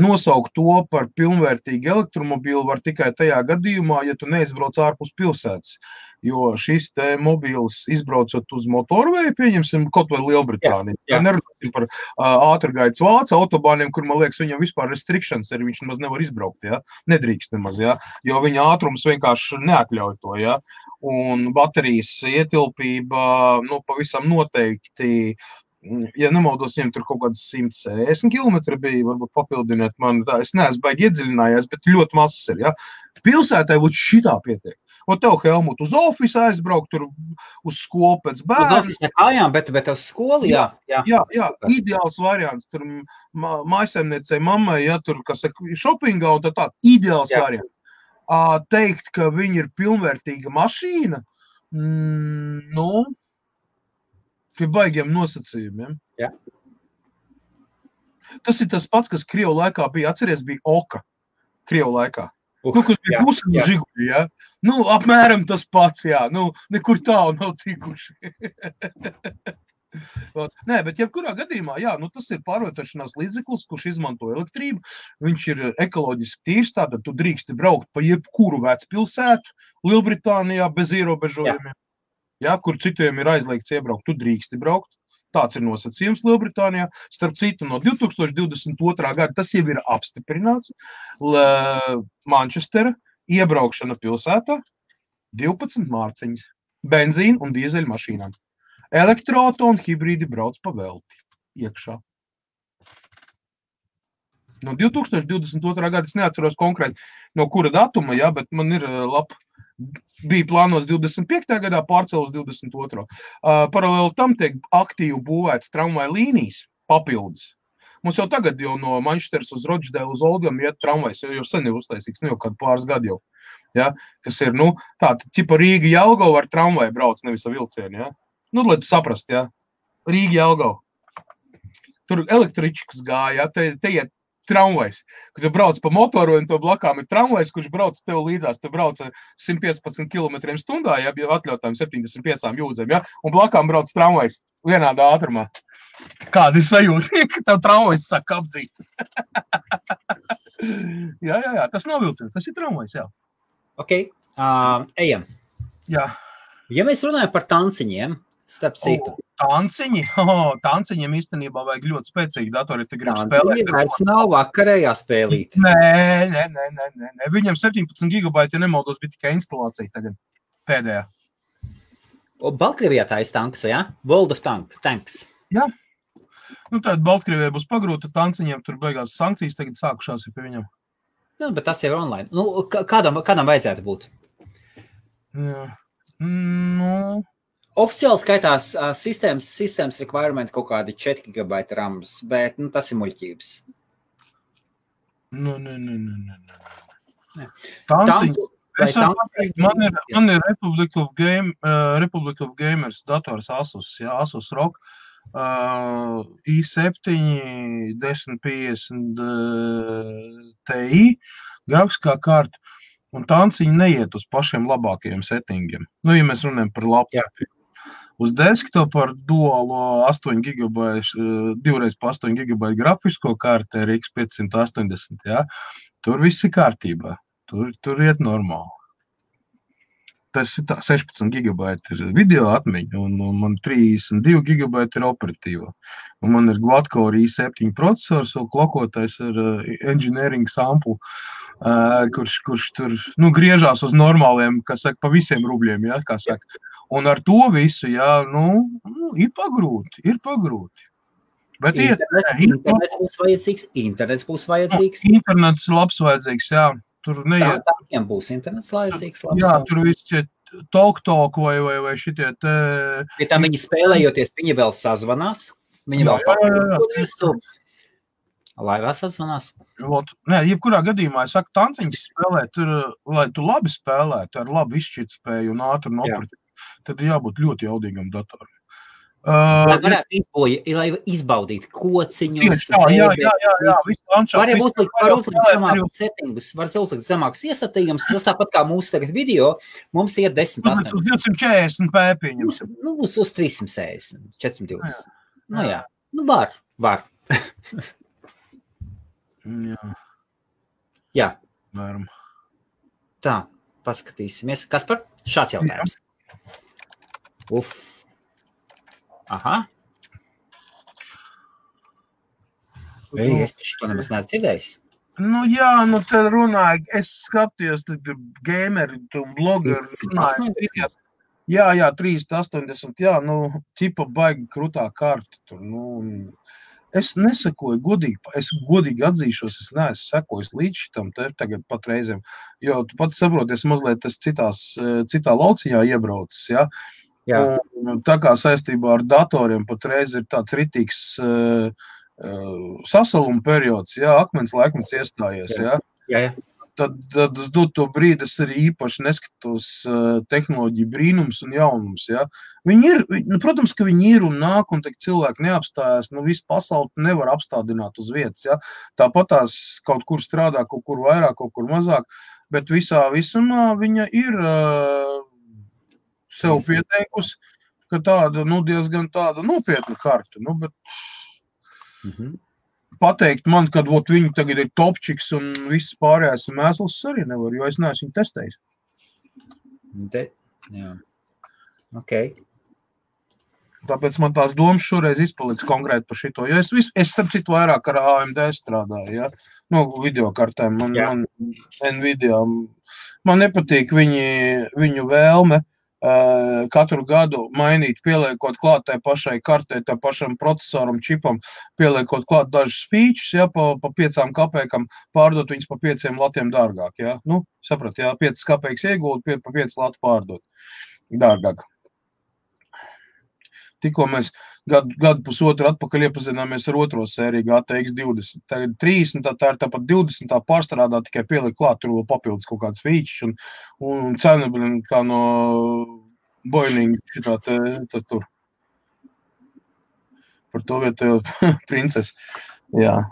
nosaukt to par pilnvērtīgu elektromobīlu var tikai tajā gadījumā, ja tu neizbrauc ārpus pilsētas. Jo šis te mobīls izbraucot uz motorveju, pieņemsim kaut vai Lielbritāniju. Jā. Nerunāsim par ātrgaitas Vācu autobāniem, kur, man liekas, viņam vispār restrictions ir, viņš nemaz nevar izbraukt, ja? Nedrīkst nemaz, ja? Jo viņa ātrums vienkārši neatļauj to, ja? Un baterijas ietilpība, pavisam noteikti, ja nemaldos, viņam tur kaut kāds 160 km bija, varbūt papildiniet man, tā, es neesmu baigi iedziļinājies, bet ļoti mazs ir, ja? Pilsētai būtu šitā pietiek. Un tev, Helmut, uz ofisu aizbraukt, tur uz skolu pēc bērnu. Uz ofisu nekājām, bet uz skolu, jā. Jā, ideāls variants. Tur mājasemniecei mammai, ja tur, kas šopingā un tā, ideāls variants. Teikt, ka viņi ir pilnvērtīga mašīna, pie baigiem nosacījumiem. Jā. Tas ir tas pats, kas Krievu laikā bija, atceries, bija Oka Krievu laikā. Kas bija pusam žiguļi, ja? Apmēram tas pats, jā. Nekur tālu nav tikuši. Nē, bet jebkurā gadījumā, jā, tas ir pārvietošanās līdzeklis, kurš izmanto elektrību. Viņš ir ekoloģiski tīrs, tātad tu drīksti braukt pa jebkuru vecpilsētu Lielbritānijā bez ierobežojumiem. Jā, kur citiem ir aizliegts iebraukt, tu drīksti braukt. Tāds ir nosacījums Lielbritānijā. Starp citu, no 2022. gada tas jau ir apstiprināts. Manchestera iebraukšana pilsētā 12 mārciņas, benzīna un dīzeļu mašīnām. Elektroauto un hibrīdi brauc pa velti iekšā. No 2022. gada es neatceros konkrēti no kura datuma, jā, bet man ir bija plānos 25. gadā, pārcēl uz 22. Paralēli tam tiek aktīvi būvēts tramvaju līnijas papildus. Mums jau tagad no Manchesteras uz Rochdale uz Oldham iet tramvajs, jau sen ir uztaisīgs, jau kādu pāris gadu jau. Ja? Kas ir, tāda, ķipa Rīga Jelgava ar tramvaju brauc, nevis ar vilcienu, ja? Lai tu saprast, ja? Rīga Jelgava. Tur električkas gāja, ja? Te iet tramvajs, kad tu brauc pa motoru un to blakām ir tramvajs, kurš brauc tev līdzās, tu brauc 115 km/h, ja, atļautājiem 75 jūdzēm, ja, un blakām brauc tramvajs vienādā ātrumā. Kāda ir sajūta, ka tev tramvajs saka apdzīt? jā, tas nav vilciens, tas ir tramvajs, jā. Ok, ejam. Jā. Ja mēs runājam par tanciņiem, starp citu. Tanciņi? Tanciņiem īstenībā vajag ļoti spēcīgi datori, ja tu gribi spēlēt. Tanciņi vairs nav vakarējā spēlīt. Nē. Viņam 17 GB, ja nemaldos, bija tikai instalācija tagad pēdējā. Baltkrievijā tā ir tanks, ja? World of Tanks. Jā. Tātad Baltkrievijā būs pagrūta tanciņiem, tur beigās sankcijas tagad sākušās ir pie viņam. Bet tas jau ir online. Kādam vajadzētu būt? Jā. Oficiāli skaitās sistēmas requirement kaut kādi 4 GB rams, bet tas ir muļķības. Man ir Republic of Gamers dators Asus, Asus ROG, i7 1050 Ti, grafiskā karta, un tanciņi neiet uz pašiem labākajiem settingiem. Ja mēs runājam par laptopu. Uz desktop ar duālo 8 GB, 2x8 GB grafisko karti RX 580, tur viss ir kārtībā. Tur iet normāli. Tas ir 16 GB ir video atmiņa, un man 32 GB ir operatīva. Un man ir quad-core i7 procesors, un klokotais ar engineering sample, kurš tur griežās uz normāliem, pa visiem rubļiem, kā saka. Un ar to visu, ir pagrūti. Bet internets būs vajadzīgs. Internets labs vajadzīgs, tur neiet. Tādiem būs internets vajadzīgs labs. Jā, tur viss talk vai šitie te... Bet tam viņi spēlējoties, viņi vēl sazvanās. Viņi vēl papildus. Laivā sazvanās. Nē, jebkurā gadījumā, es saku, tanciņas spēlē, lai tu labi spēlētu, ar labu izšķirtspēju un ātru operatīvu. Tad ir jābūt ļoti jaudīgam datoram. Lai varētu izbaudīt kociņus. Jā. Var uzlikt settingus, var uzlikt zemākus iestatījumus. Tas tāpat kā mūsu tagad video, mums iet 10-8. Uz 240 pēpiņus. Uz 360, 420. Var. Jā. Varam. Tā, paskatīsimies. Kaspar, šāds jautājums. Aha. Es to nemaz neesmu dzirdējis. Te runāju, es skatījos, gameri un blogeri runāju. Jā, 380, ķipa baigi krutā karta tur, Es nesakoju godīgi atzīšos, es neesmu sekojis līdz šitam tagad pat reizēm, jo tu pats saproties, mazliet es citā lauciņā iebraucis, Un, tā kā saistībā ar datoriem patreiz ir tāds ritīgs sasaluma periods, akmens laikmets iestājies, Tad uz doto brīdi es arī īpaši neskatos tehnoloģiju brīnums un jaunums, Viņi ir, protams, ka viņi ir un nāk, un cilvēki neapstājās, visu pasauli nevar apstādināt uz vietas, Tāpat tās kaut kur strādā, kaut kur vairāk, kaut kur mazāk, bet visumā viņa ir sev pieteikusi, ka tāda, diezgan tāda nopietna karta, bet pateikt man, kad viņi tagad ir topčiks un viss pārējās mēsls arī nevar, jo es neesmu viņu testējis. Tāpēc man tās domas šoreiz izpaliks konkrēti par šito, jo es starp citu vairāk ar AMD strādāju, videokartēm, man Nvidia, man nepatīk viņu vēlme, katru gadu mainīt, pieliekot klāt tai pašai kartei, tai pašam procesoram, čipam, pieliekot klāt dažus features, pa 5 kapekam, pārdot viņus pa 5 latiem dārgāk, saprat, 5 kapeks iegūt, pa 5 latu pārdot dārgāk. Tikko mēs gadu pusotru atpakaļ iepazināmies ar otro sēriju GTX 20, tagad 30, tā ir tāpat 20, tā pārstrādā, tikai pieliek klāt, tur vēl papildus kaut kāds features un cena, kā no Boeing šitā tur. Par to vietējo princesi. Jā.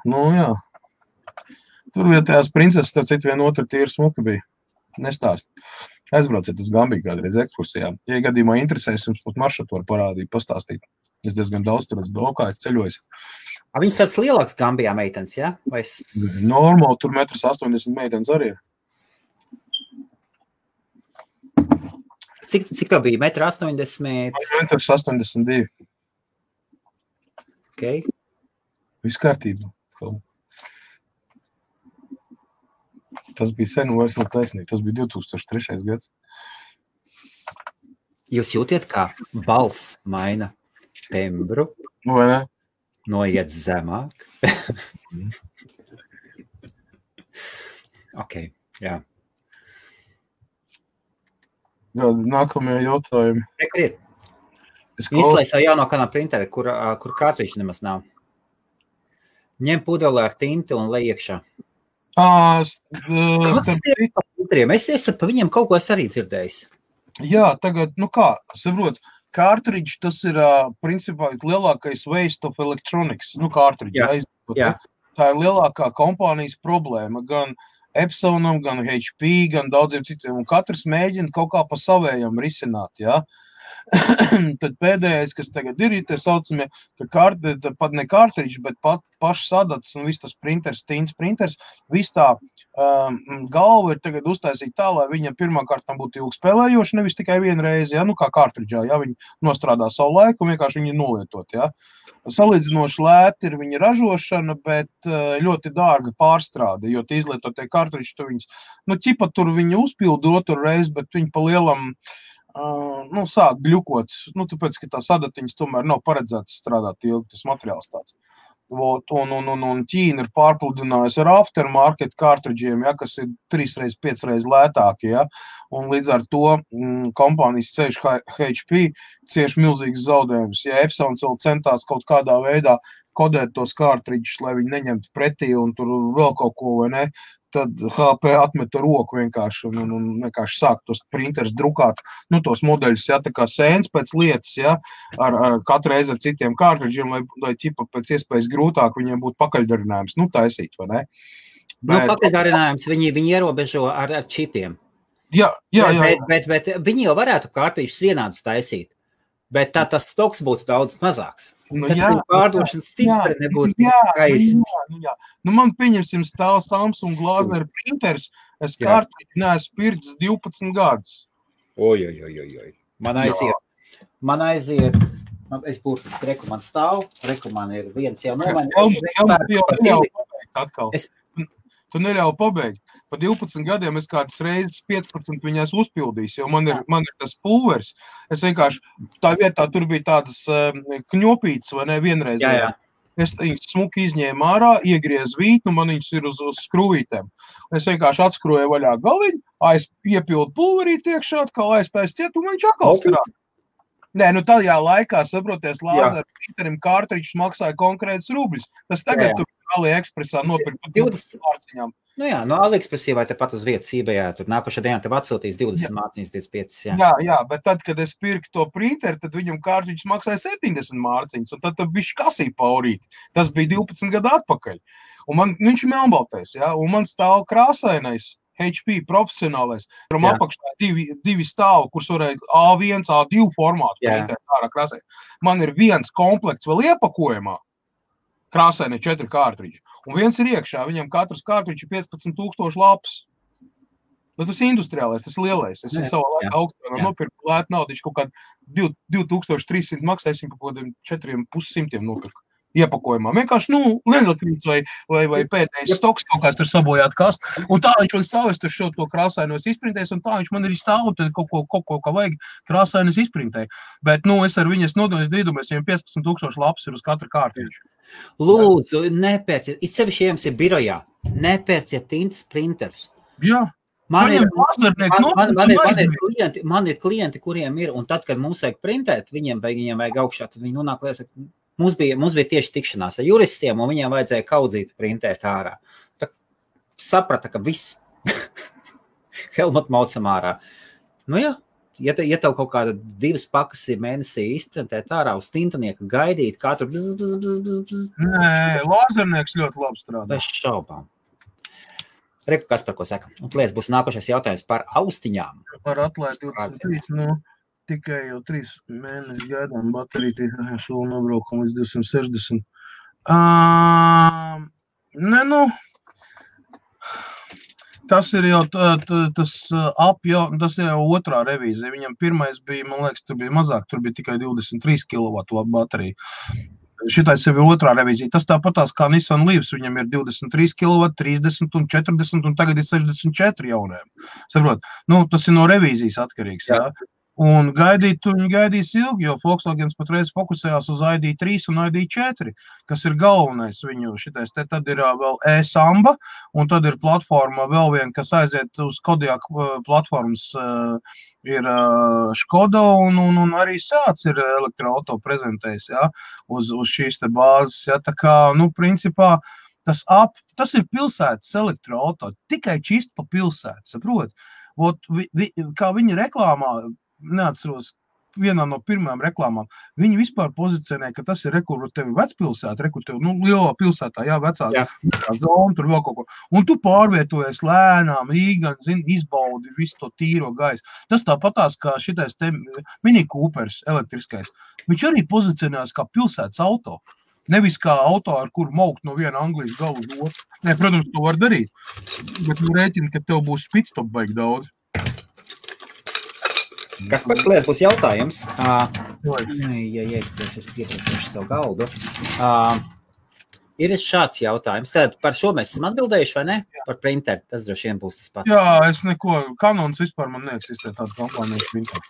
Tur vietējās princeses, starp citu, viena otra tīra smuka bija. Nestāst. Aizbrauciet uz Gambiju kādreiz ekskursijā. Ja gadījumā interesēs, jums pat maršrutu var parādīt, pastāstīt. Es diezgan daudz tur esmu braukājis, ceļojis. Viņas tāds lielāks Gambijā meitenes, Normāli, tur 1,80 m meitenes arī ir. Cik tā bija? 1,80 m? 1,82 m. Ok. Viss kārtībā. Tas bija sen un vairs nav taisnīgi. Tas bija 2003. gads. Jūs jūtiet, kā balss maina tembru? Vai ne? Noiet zemāk? Ok, jā. Jā, nākamie jautājumi. Te ir. Izslēdz jau jauno kanālu printeri, kur kārtīši nemaz nav. Ņem pudeli ar tinti un lej iekšā. Kāds tie par printeriem? Es par viņiem kaut ko es arī dzirdējis. Jā, tagad, saprot, cartridge, tas ir, principā, lielākais waste of electronics, cartridge. Jā. Tā ir lielākā kompānijas problēma, gan Epsonam, gan HP, gan daudziem citiem, un katrs mēģina kaut kā pa savējam risināt, jā. Tad pēdējais, kas tagad ir tie saucamie, pat ne cartridge, bet pašs sadats un viss tas printers, tints printers, viss tā galva ir tagad uztaisīt tā, lai viņa pirmkārt būtu ilgspēlējoša, nevis tikai vienreiz, ja, kā cartridge'ā, ja, viņi nostrādā savu laiku un vienkārši viņi nolietot, ja. Salīdzinoši lēti ir viņa ražošana, bet ļoti dārga pārstrāde, jo tie izlietotie cartridge, tu viņas, ķipa tur viņi uzpildu otru reizi, bet viņi pa lielam sāk gļukot, tāpēc, ka tā sadatiņas tomēr nav paredzētas strādāt ilgi, tas materiāls tāds. Un Ķīna ir pārpludinājusi ar aftermarket cartridge'iem, ja, kas ir 3-5 reizes lētāki, ja, un līdz ar to kompānijas ceļš HP cieši milzīgas zaudējumus. Ja Epsons vēl centās kaut kādā veidā kodēt tos cartridges, lai viņi neņemtu pretī un tur vēl kaut ko, vai ne, tad HP atmeta roku vienkārši un vienkārši sāk tos printers drukāt, tos modeļus, ja, tā kā sēns pēc lietas, ja, ar katru reizi ar citiem cartridžiem, lai ķipa pēc iespējas grūtāk viņiem būtu pakaļdarinājums, taisīt, vai ne? Pakaļdarinājums viņi ierobežo ar čipiem. Jā. Bet viņi jau varētu cartridžus vienādus taisīt, bet tā tas stoks būtu daudz mazāks. Tad pārdošanas cipari nebūtu skaisti. Jā. Man pieņemsim stāv Samsung Glazner printers, es cartridži neesmu pircis 12 gadus. Oj. Man aiziet, es burtiski man stāv, man ir viens jau Tu neļauj pabeigt. Pa 12 gadiem es kādas reizes 15 viņās uzpildījis, jo man ir tas pulvers. Es vienkārši, tā vietā tur bija tādas kņopītes, vai ne, vienreizējās. Es viņus smuki izņēmu ārā, iegriez vītnu, man viņus ir uz skrūvītēm. Es vienkārši atskroju vaļā galiņu, iepildu pulverīt iekšā, atkal aiztais ciet, un viņš atkal strādā. Nē, tajā laikā, saproties, lāzeru printerim cartridges maksāja konkrētas rubļus. Tas tagad tur AliExpressā nopirkt par 20 mārciņām. AliExpressī vai tepat uz vietas eBayā, tur nākošā dienā tev atsūtīs 20 mārciņas, 25, Jā, bet tad, kad es pirku to printeru, tad viņam cartridges maksāja 70 mārciņas, un tad bišķi kasīja paurīt. Tas bija 12 gadu atpakaļ. Un viņš ir melnbaltais, un man stāv krāsainais HP profesionālais, kuram apakšā divi stāvi, kurus varēja A1, A2 formātu printēt ārā krāsai. Man ir viens komplekts vēl iepakojumā, krāsaini 4 cartridži, un viens ir iekšā, viņam katrs cartridži 15,000 lapas. Tas industriālais, tas lielais. Es viņu savā laikā augstā nopirku lētu naudu, viņš kaut kādu 2300 maksāsim par kaut kādiem 4,500 nopirku. Iepakojumā. Vienkārši, lielakrīts vai pēdējais stoks kaut kāds tur sabojāt kast. Un tā viņš man stāvēs tur šo to krāsainos izprintēs, un tā viņš man arī stāv, tad kaut ko vajag krāsainos izprintē. Bet, es ar viņas nodomēs, viņam 15,000 lapas ir uz katru kārtīšu. Lūdzu, nepērciet, it sevišķi jums ir birojā, nepērciet tintas printerus. Jā. Man ir klienti, kuriem ir, un tad, kad mums vajag printēt, viņiem vajag augšā, tad viņi nonāk liels. Mums bija tieši tikšanās ar juristiem, un viņiem vajadzēja kaudzīt printēt ārā. Tā saprata, ka viss Helmut maucam ārā. Ja tev kaut kāda 2 pakas ir mēnesī izprintēt ārā uz tintanieka gaidīt, katru Nē, lāzernieks ļoti labi strādā. Bez šaubām. Reku, kas par ko saka? Un lies būs nākošais jautājums par austiņām. Par atlaidi 23, tikai jau 3 mēneši gaidām bateriju, šo nobraukam līdz 260. Tas ir jau tas ir jau otrā revīzija. Viņam pirmais bija, man liekas, tur bija mazāk, tur bija tikai 23 kW baterija. Šitais jau ir otrā revīzija. Tas tāpatās kā Nissan Leafs, viņam ir 23 kW, 30 un 40 un tagad ir 64 jauniem. Saprot? Tas ir no revīzijas atkarīgs, jā. Un viņi gaidīs ilgi, jo Volkswagens patreiz fokusējās uz ID3 un ID4, kas ir galvenais viņu šitais. Tad ir vēl e-Samba, un tad ir platforma vēl viena, kas aiziet uz Kodiaq platformas, ir Škoda, un arī Seats ir elektroauto prezentējis, ja, uz šīs te bāzes. Ja, tā kā, principā, tas ir pilsētas elektroauto, tikai čist pa pilsētu, saprot? Kā viņi reklāmā, neatceros, vienā no pirmajām reklāmām, viņi vispār pozicionē, ka tas ir kur tevi vecpilsēta, kur tevi, lielā pilsētā, jā, vecā zona, tur vēl kaut ko. Un tu pārvietojies lēnām, īgan, izbaudi visu to tīro gaisu. Tas tāpatās, kā šitais te Mini Coopers elektriskais. Viņš arī pozicionējas kā pilsētas auto. Nevis kā auto, ar kuru maukt no viena Anglijas galu uz otru. Nē, protams, to var darīt. Bet rēķini, ka tev būs pitstop baigi daudz. Kas par klies būs jautājums? Es pieprasīšu savu galdu. Ir šāds jautājums. Tad par šo mēs esam atbildējuši, vai ne? Par printeri. Tas droši vien būs tas pats. Jā, es neko. Canons vispār man neeksistē tāda kompānija printeri.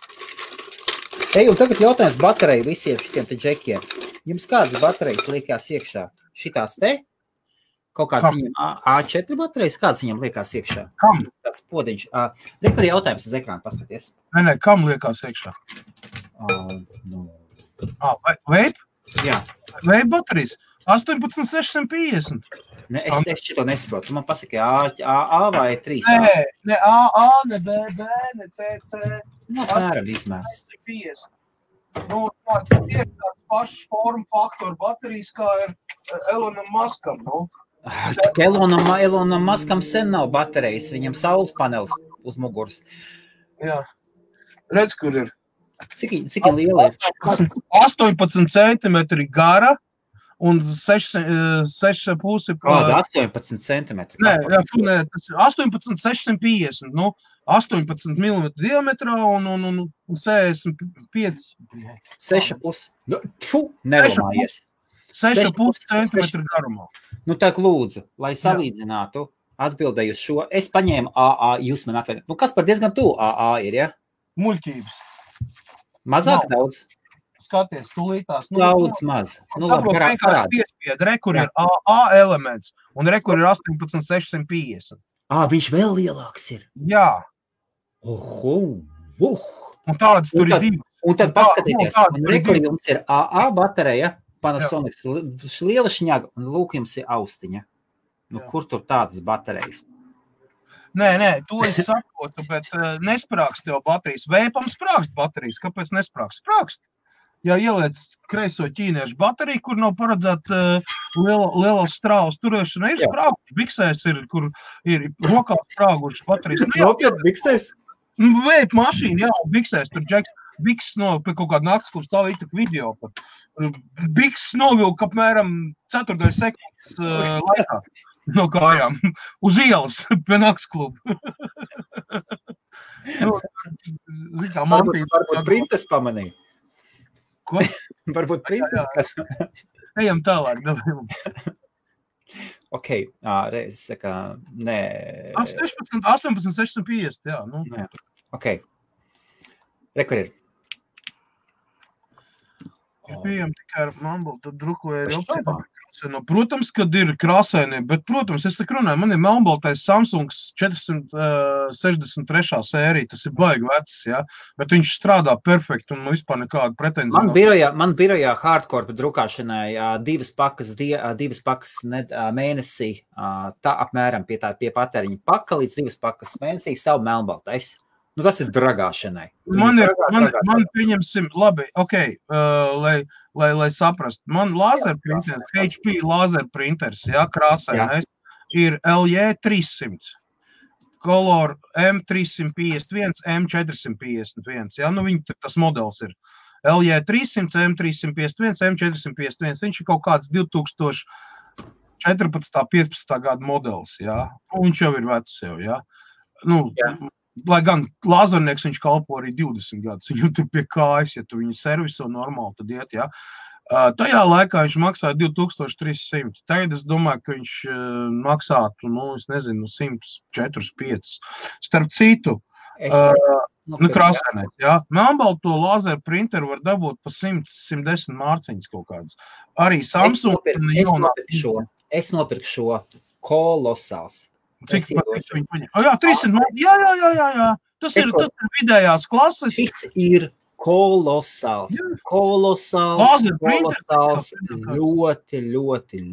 Un tagad jautājums bateriju visiem šitiem te džekiem. Jums kādas baterijas liekās iekšā? Šitās te? Kaut kāds viņam A4 baterijas, kāds viņam liekās iekšā? Kam? Tāds podiņš. Rektori jautājums uz ekrānu paskaties. Nē, kam liekās iekšā? Vape? Jā. Vape baterijas? 18650. Es šito nesaprotu. Man pasaki A vai 3? Ne AA, ne BB, ne CC. Apmēram izmērs. 50. Tāds pašs formu faktoru baterijas, kā ir Elonam Muskam, Elonam Muskam sen nav baterijas, viņam saules panelis uz muguras. Jā. Redz, kur ir. Cik liela ir? 18 centimetri gara un 6,5 Kāda 18 centimetri? Nē, tas ir 18,650, 18 mm diametrā un 65. 6,5. Nerunājies. 6,5 centimetri garumā. Tā lūdzu, lai salīdzinātu, atbildēju šo. Es paņēmu AA, jūs man atvedāt. Kas par diezgan tuvu AA ir, ja? Muļķības. Mazāk daudz? Skaties, tūlītās. Daudz maz. Saprot, vienkārši piespied. Rekur ir AA elements un rekur ir 18,650. Viņš vēl lielāks ir? Jā. Un tādas tur ir divas. Un tad paskatieties, rekur jums ir AA baterija, Panasonic, liela šņaga, un lūk jums ir austiņa. Kur tur tādas baterijas? Nē, to es saprotu, bet nesprākst tev baterijas. Vēpam sprākst baterijas. Kāpēc nesprākst? Sprākst. Ja ieliec kreiso ķīniešu bateriju, kur nav paredzēta lielas strāvas turēšana, ir sprāguši. Biksēs ir, kur ir rokā sprāguši baterijas. Nopietni, biksēs? Vēp mašīna, jā, biksēs tur džeks. Biks pie kaut kāda naktas, kur stāv ītak video pat. Biks novilka apmēram 4 sekundes laikā no kājām. Uz ielas pie naktas klubu. Varbūt printes pamanīja. Ko? Varbūt princes. Ejam tālāk. Ok, reiz saka, nē. 18,650, jā. Nē. Ok. Rekur ir. Bijām tikai ar Mamblu, tad drukoja arī opcija. Protams, kad ir krāsaini, bet, protams, es tak runāju, man ir melnbaltais Samsungs 463. sērija, tas ir baigi vecs, ja? Bet viņš strādā perfekti un vispār nekāda pretenzija. Man birojā hardcore drukāšanai divas pakas mēnesī, tā apmēram pie patēriņa paka līdz 2 pakas mēnesī stāv melnbaltais. Tas ir dragāšanai. Man pieņemsim, labi, ok, lai saprast. Man lāzerprinters, HP lāzerprinters, jā, krāsainais, ir LJ300, Color M351, M451, jā, tas modelis ir. LJ300, M351, M451, viņš ir kaut kāds 2014. 15. gada modelis, jā, viņš jau ir vecs jau, jā. Lai gan lāzernieks viņš kalpo arī 20 gadus, viņu tur pie kājas, ja tu viņu serviso normāli, tad iet, jā. Tajā laikā viņš maksāja 2300. Tagad es domāju, ka viņš maksātu, es nezinu, 104, 5. Starp citu, Nu, krāsainais, jā. Melnbalto lazeru printeru var dabūt pa 100-110 mārciņas kaut kādas. Arī Samsung. Es nopirku šo kolosāls. Cik viņi paņem? Jā, 300 mārciņas. Jā. Tas ir vidējās klases. Šis ir kolosāls. Ļoti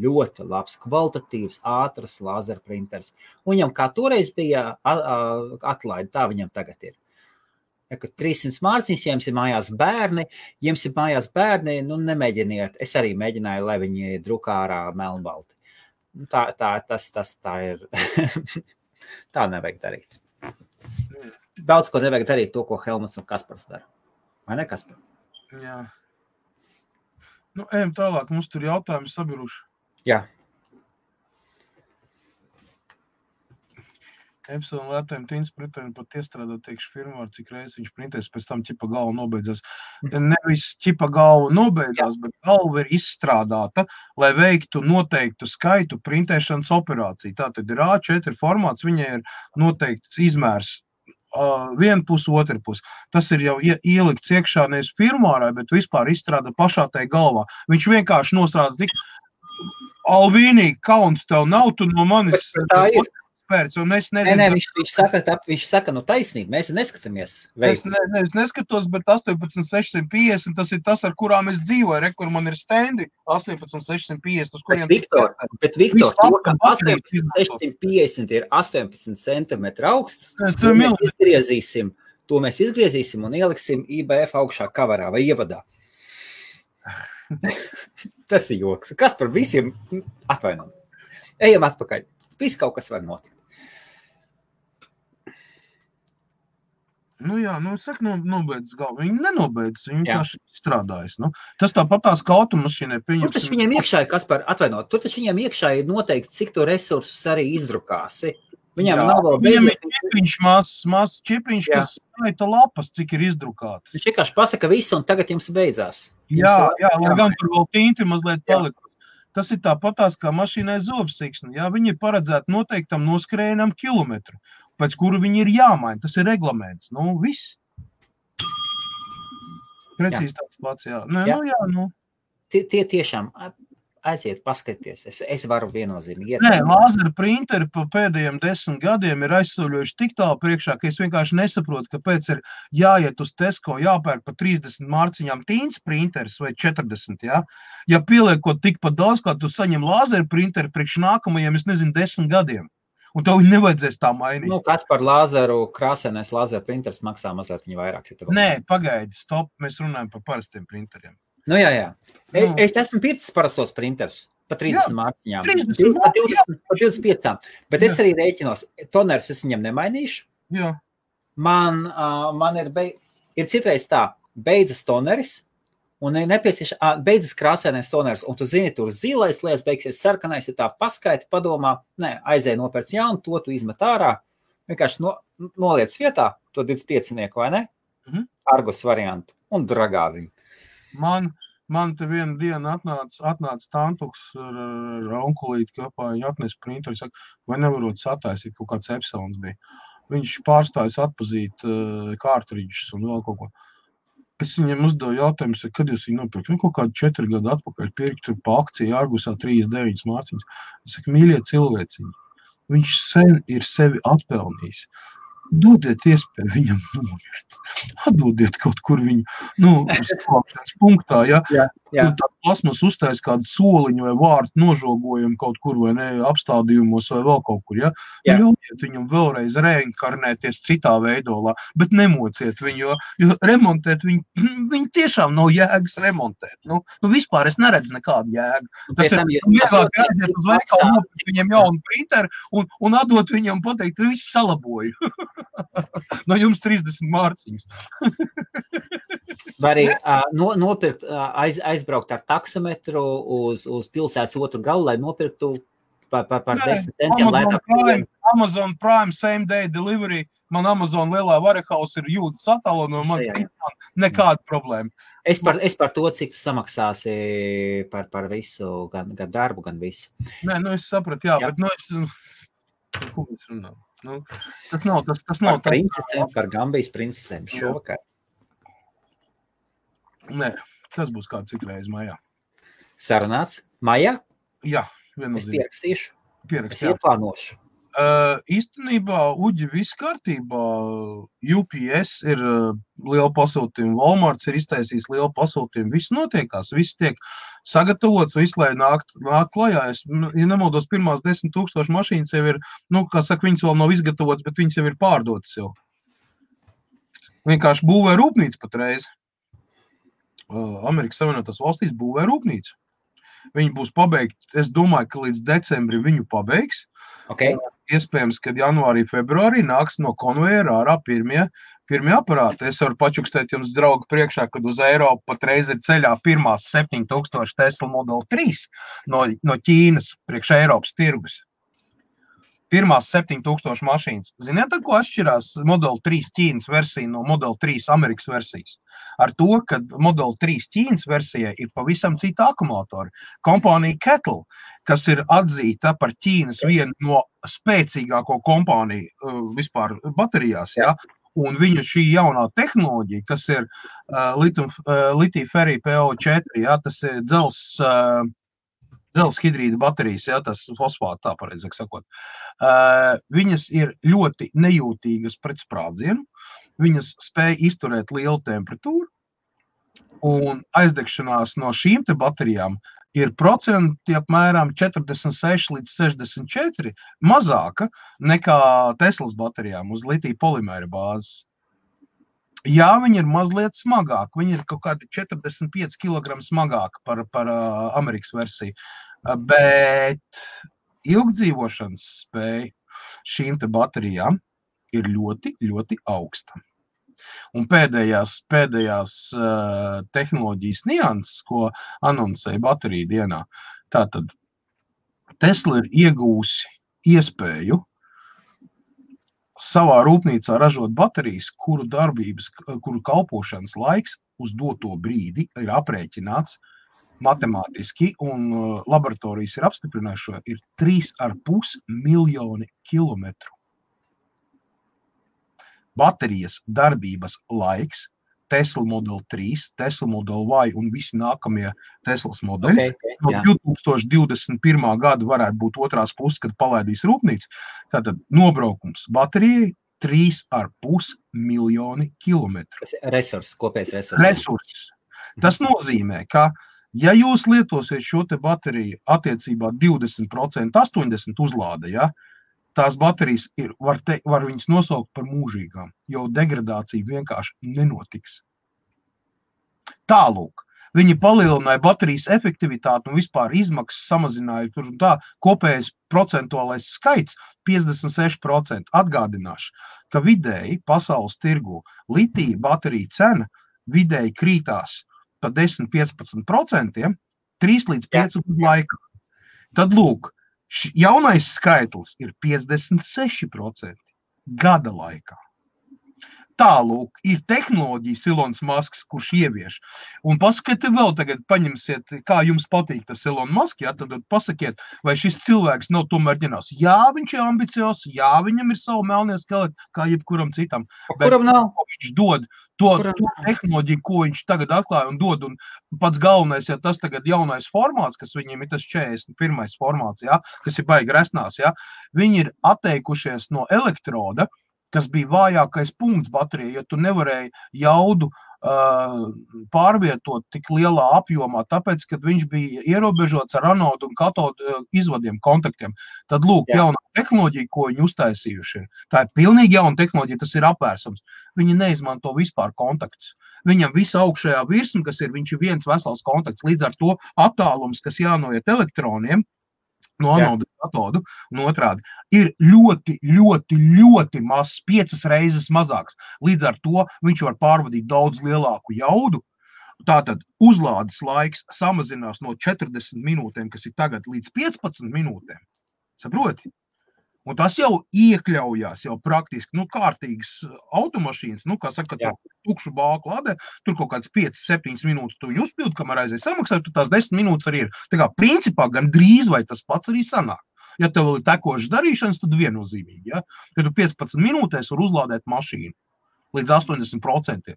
labs, kvalitatīvs, ātrs lazeru printers. Un viņam kā toreiz bija atlaidi, tā viņam tagad ir. Ja, 300 mārciņas, ja jums ir mājās bērni, nu nemēģiniet. Es arī mēģināju, lai viņi drukā ārā melnbalti. Tā ir. Tā nevajag darīt. Daudz ko nevajag darīt to, ko Helmuts un Kaspars dara. Vai ne, Kaspar? Jā. Nu, ejam tālāk, mums tur jautājumi sabiruši. Jā. Epson lētēm tīns printerim pat iestrādāt tiekšu firmā, cik reizes viņš printēs, pēc tam ķipa galva nobeidzās. Nevis ķipa galva nobeidzās, bet galva ir izstrādāta, lai veiktu noteiktu skaitu printēšanas operāciju. Tātad ir A4 formāts, viņai ir noteikts izmērs viena puse, otra puse. Tas ir jau ielikts iekšā nevis firmārā, bet vispār izstrāda pašā tai galvā. Viņš vienkārši nostrādā tik Alvīnīgi, kauns tev nav, tu no manis... Tā ir. Un es nezinu, viņš saka, nu taisnība, mēs neskatāmies. Es neskatos, bet 18650, tas ir tas, ar kurām es dzīvoju, kur man ir stendi 18650, uz kuriem... Bet Viktor, to, ka 18650 ir 18 centimetri augstas, to mēs izgriezīsim un ieliksim IBF augšā kavarā vai ievadā. Tas ir joks. Kas par visiem atvainojam? Ejam atpakaļ. Viss kaut kas var notikt. Nu jā, saka, nobeidz galvu. Viņi nenobeidz, viņi vienkārši strādājas. Nu. Tas tāpatās kā automašīnai pieņemsim. Tur taču viņiem iekšā ir, Kaspar, atvainot, tur taču viņiem iekšā ir noteikti, cik to resursus arī izdrukāsi. Viņam nav vēl beidzies. Viņam ir čipiņš, mazs čipiņš, kas skaita lapas, cik ir izdrukātas. Viņš vienkārši pasaka visu, un tagad jums beidzās. Jā, lai gan tur vēl tinti mazliet palika. Tas ir tāpatās kā mašīnai zobsiksni. Jā, viņi ir paredzēti noteiktam noskrējienam kilometru, pēc kuru viņi ir jāmaina. Tas ir reglaments. Nu, viss. Precīzi tāds pats, jā. Tie tiešām aiziet, paskaties. Es varu viennozīmīgi iet. Nē, lāzera printeri pa pēdējiem 10 gadiem ir aizsauļojuši tik tālu priekšā, ka es vienkārši nesaprotu, kāpēc ir jāiet uz Tesco, jāpērk pa 30 mārciņām tīns printeris vai 40, jā. Ja pieliekot tikpat daudz, kā tu saņem lāzera printeri priekš nākamajiem, es nezinu, 10 gadiem. Un tev viņi nevajadzēs tā mainīt. Nu, kāds par lāzeru, krāsainais lāzera printers maksā mazliet viņa vairāk. Nē, pagaidi, stop, mēs runājam par parastiem printeriem. Nu, jā. Es esmu pircis parastos printerus pa 30 mārciņām. Pa 25. Bet es arī rēķinos. Tonerus es viņam nemainīšu. Jā. Man ir citreiz tā, beidzas toneris, un ir nepieciešams, beidzas krāsainais toneris, un tu zini, tur zilais lietas beigsies, sarkanais, ja tā paskaiti, padomā, aizēj nopērc jaunu, to tu izmet ārā, vienkārši noliec vietā, to 25-nieku, vai ne? Argus variantu, un dragā viņu. Man te viena diena atnāca tantuks ar onkulīti kapā, viņi atnes printeru, saka, vai nevarot sataisīt, kaut kāds Epsons bija. Viņš pārstājas atpazīt kārtridžus un vēl kaut ko. Es viņam uzdevu jautājumu, kad jūs viņu nopirkt? Kaut kādu 4 gadu atpakaļ pirkt pa akciju Argusā 39 mārciņas. Es saku, mīļie cilvēciņi, viņš sen ir sevi atpelnījis. Dodiet iespēju viņam nomirt. Atdodiet kaut kur viņu, uz punktā, ja? Tur tā plasmas uztais kādu soliņu vai vārtu nožogojumu kaut kur vai ne, apstādījumos vai vēl kaut kur, ja? Ļaujiet viņam vēlreiz reinkarnēties citā veidolā, bet nemociet viņu, jo remontēt viņu tiešām nav jēgas remontēt. Nu, vispār es neredzu nekādu jēgu. Tas ir vieglāk aiziet uz veikalu, nopirkt viņam jaunu printeru un atdot viņam pateikt, viss salaboju. No jums 30 mārciņas. Vai arī nopirkt, aizbraukt ar taksometru uz pilsētas otru galu, lai nopirktu par 10 centiem. Amazon Prime Same Day Delivery. Man Amazon lielā warehouse ir jūtas attālo no man nekāda problēma. Es par to, cik tu samaksāsi par visu, gan darbu, gan visu. Nē, es sapratu, bet ko mēs runājam? Nu, tas nav Par princesēm, par Gambijas princesēm šovakar. Nē, tas būs kāds citreiz maijā. Sarunāts? Maijā? Jā, Es viennozīmīgi. pierakstīšu. Pierakst, Es jā. ieplānošu. Īstenībā, Uģi, viss kārtībā. UPS ir liela pasūtījuma, Walmarts ir iztaisījis lielu pasūtījumu. Viss notiekās, viss tiek sagatavots, viss, lai nāk klajā. Ja nemaldos, pirmās 10 000 mašīnas jau ir, kā saka, viņas vēl nav izgatavotas, bet viņas jau ir pārdotas jau. Vienkārši būvē rūpnīca patreiz. Amerikas Savienotās valstīs būvē rūpnīca. Viņi būs pabeigti, es domāju, ka līdz decembrim viņu pabeigs. Okay. Iespējams, kad janvārī, februārī nāks no konvejera ārā pirmie aparāti. Es varu pačukstēt jums, draugi, priekšā, kad uz Eiropu patreiz ir ceļā pirmās 7000 Tesla Model 3 no Ķīnas priekš Eiropas tirgus. Pirmās 7000 mašīnas. Ziniet, ar ko atšķirās Model 3 Ķīnas versija no Model 3 Amerikas versijas? Ar to, ka Model 3 Ķīnas versijai ir pavisam cita akumulatori. Kompānija Kettle, kas ir atzīta par Ķīnas vienu no spēcīgāko kompāniju vispār baterijās, ja? Un viņu šī jaunā tehnoloģija, kas ir litija-ferija PO4, ja? Tas ir dzelzs hidrīda baterijas, ja, tas fosfāti, tā pareizāk sakot. Viņas ir ļoti nejūtīgas pret sprādzienu, viņas spēj izturēt lielu temperatūru, un aizdegšanās no šīm te baterijām ir procenti apmēram 46 līdz 64 mazāka nekā Teslas baterijām uz litija polimēra bāzes. Jā, viņi ir mazliet smagāki, viņi ir kaut kādi 45 kg smagāki par Amerikas versiju, bet ilgdzīvošanas spēja šīm te baterijām ir ļoti, ļoti augsta. Un pēdējās tehnoloģijas nianses, ko anoncēja bateriju dienā, tātad Tesla ir iegūsi iespēju savā rūpnīcā ražot baterijas, kuru kalpošanas laiks uz doto brīdi ir aprēķināts matemātiski, un laboratorijas ir apstiprinājuši, ir 3,5 miljoni kilometru. Baterijas darbības laiks Tesla Model 3, Tesla Model Y un visi nākamie Teslas modeļi. No 2021. gada varētu būt otrās puses, kad palaidīs rūpnīca. Tātad nobraukums baterijai 3,5 miljoni kilometru. Kopējs resurss. Tas nozīmē, ka ja jūs lietosiet šo te bateriju attiecībā 20%, 80% uzlāde, ja, tās baterijas var viņas nosaukt par mūžīgām, jo degradācija vienkārši nenotiks. Tālūk, viņi palielināja baterijas efektivitāti un vispār izmaksas samazināja tur un tā, kopējais procentuālais skaits 56%. Atgādināšu, ka vidēji pasaules tirgu litija baterija cena vidēji krītās pa 10-15%, 3 līdz 5 gadu laikā. Tad lūk, jaunais skaitlis ir 56% gada laikā. Tālūk, ir tehnoloģijas Elons Musks, kurš ievieš. Un pasakiet vēl tagad, paņemsiet, kā jums patīk tas Elon Musk, ja, tad pasakiet, vai šis cilvēks nav tomēr ģenerāls. Jā, viņš ir ambiciozs, jā, viņam ir savu melnie skeleti, kā jebkuram citam. Kuram nav? Viņš dod to tehnoloģiju, ko viņš tagad atklāja un dod, un pats galvenais, ja tas tagad jaunais formāts, kas viņiem ir tas 41. formāts, ja, kas ir baigi resnās, ja, viņi ir atteikušies no elektroda, kas bija vājākais punkts baterijai, jo tu nevarēji jaudu pārvietot tik lielā apjomā, tāpēc, kad viņš bija ierobežots ar anodu un katodu izvadiem, kontaktiem. Tad lūk, jaunā tehnoloģija, ko viņi uztaisījuši ir. Tā ir pilnīgi jauna tehnoloģija, tas ir apvērsums. Viņi neizmanto vispār kontaktus. Viņam visa augšējā virsma, kas ir, viņš ir viens vesels kontakts, līdz ar to attālums, kas jānoiet elektroniem, no anodu katodu un otrādi, ir ļoti, ļoti, ļoti maz, 5 reizes mazāks. Līdz ar to viņš var pārvadīt daudz lielāku jaudu. Tātad uzlādes laiks samazinās no 40 minūtēm, kas ir tagad, līdz 15 minūtēm. Saproti? Un tas jau iekļaujās jau praktiski, kārtīgas automašīnas, kā saka, tukšu bāku lādē, tur kaut kāds 5-7 minūtes tu viņu uzpildi, kamēr aizies samaksāt, tur tās 10 minūtes arī ir. Tā kā principā gan drīz vai tas pats arī sanāk. Ja tev vēl ir tekošas darīšanas, tad viennozīmīgi, ja? Kad tu 15 minūtēs var uzlādēt mašīnu līdz 80%.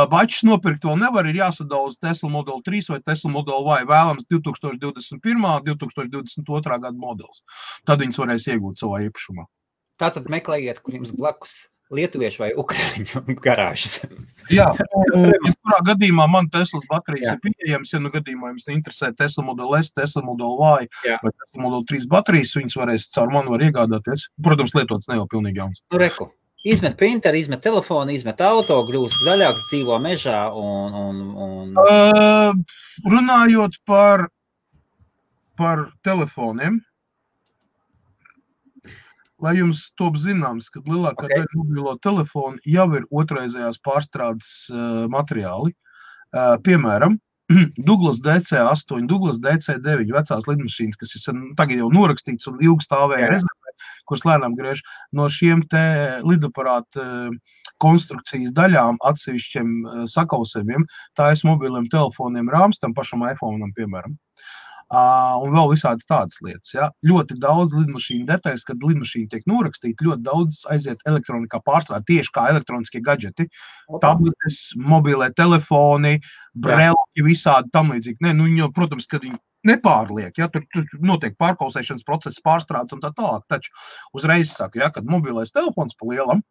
Bačus nopirkt vēl nevar, ir jāsadauza Tesla Model 3 vai Tesla Model Y, vēlams 2021. 2022. Gada modelis. Tad viņas varēs iegūt savā īpašumā. Tātad meklējiet, kur jums blakus lietuviešu vai ukraiņu garāžas. Jā, kurā gadījumā man Teslas baterijas ir pieejams, ja nu gadījumā jums interesē Tesla Model S, Tesla Model Y vai Tesla Model 3 baterijas, viņas varēs caur mani var iegādāties. Protams, lietots ne jau pilnīgi jauns. Nu, reku. Izmet printeri, izmet telefonu, izmet auto, kļūst zaļāks, dzīvo mežā un... Runājot par telefoniem, lai jums top zināms, kad lielākā daļa mobilo telefonu jau ir otraizējās pārstrādes materiāli. Piemēram, Douglas DC8, Douglas DC9 vecās lidmašīnas, kas ir tagad jau norakstīts un ilgi stāvēja rezervē, kuras lēnām griež no šiem te lidaparāta konstrukcijas daļām atsevišķiem sakausējumiem, tā es mobiliem telefoniem rāms, tam pašam iPhone'am, piemēram. Un vēl visādas tādas lietas. Ja? Ļoti daudz lidmašīnu detaļas, kad lidmašīna tiek norakstīta, ļoti daudz aiziet elektronikā pārstrāde, tieši kā elektroniskie gadžeti, tabletes, mobilie telefoni, brelki, visādi tam līdzīgi. Ne, nu, jo, protams, kad viņi nepārliek, ja? Tur notiek pārkausēšanas process, pārstrādes un tā tālāk, taču uzreiz saka, ja? Kad mobilais telefons pa lielam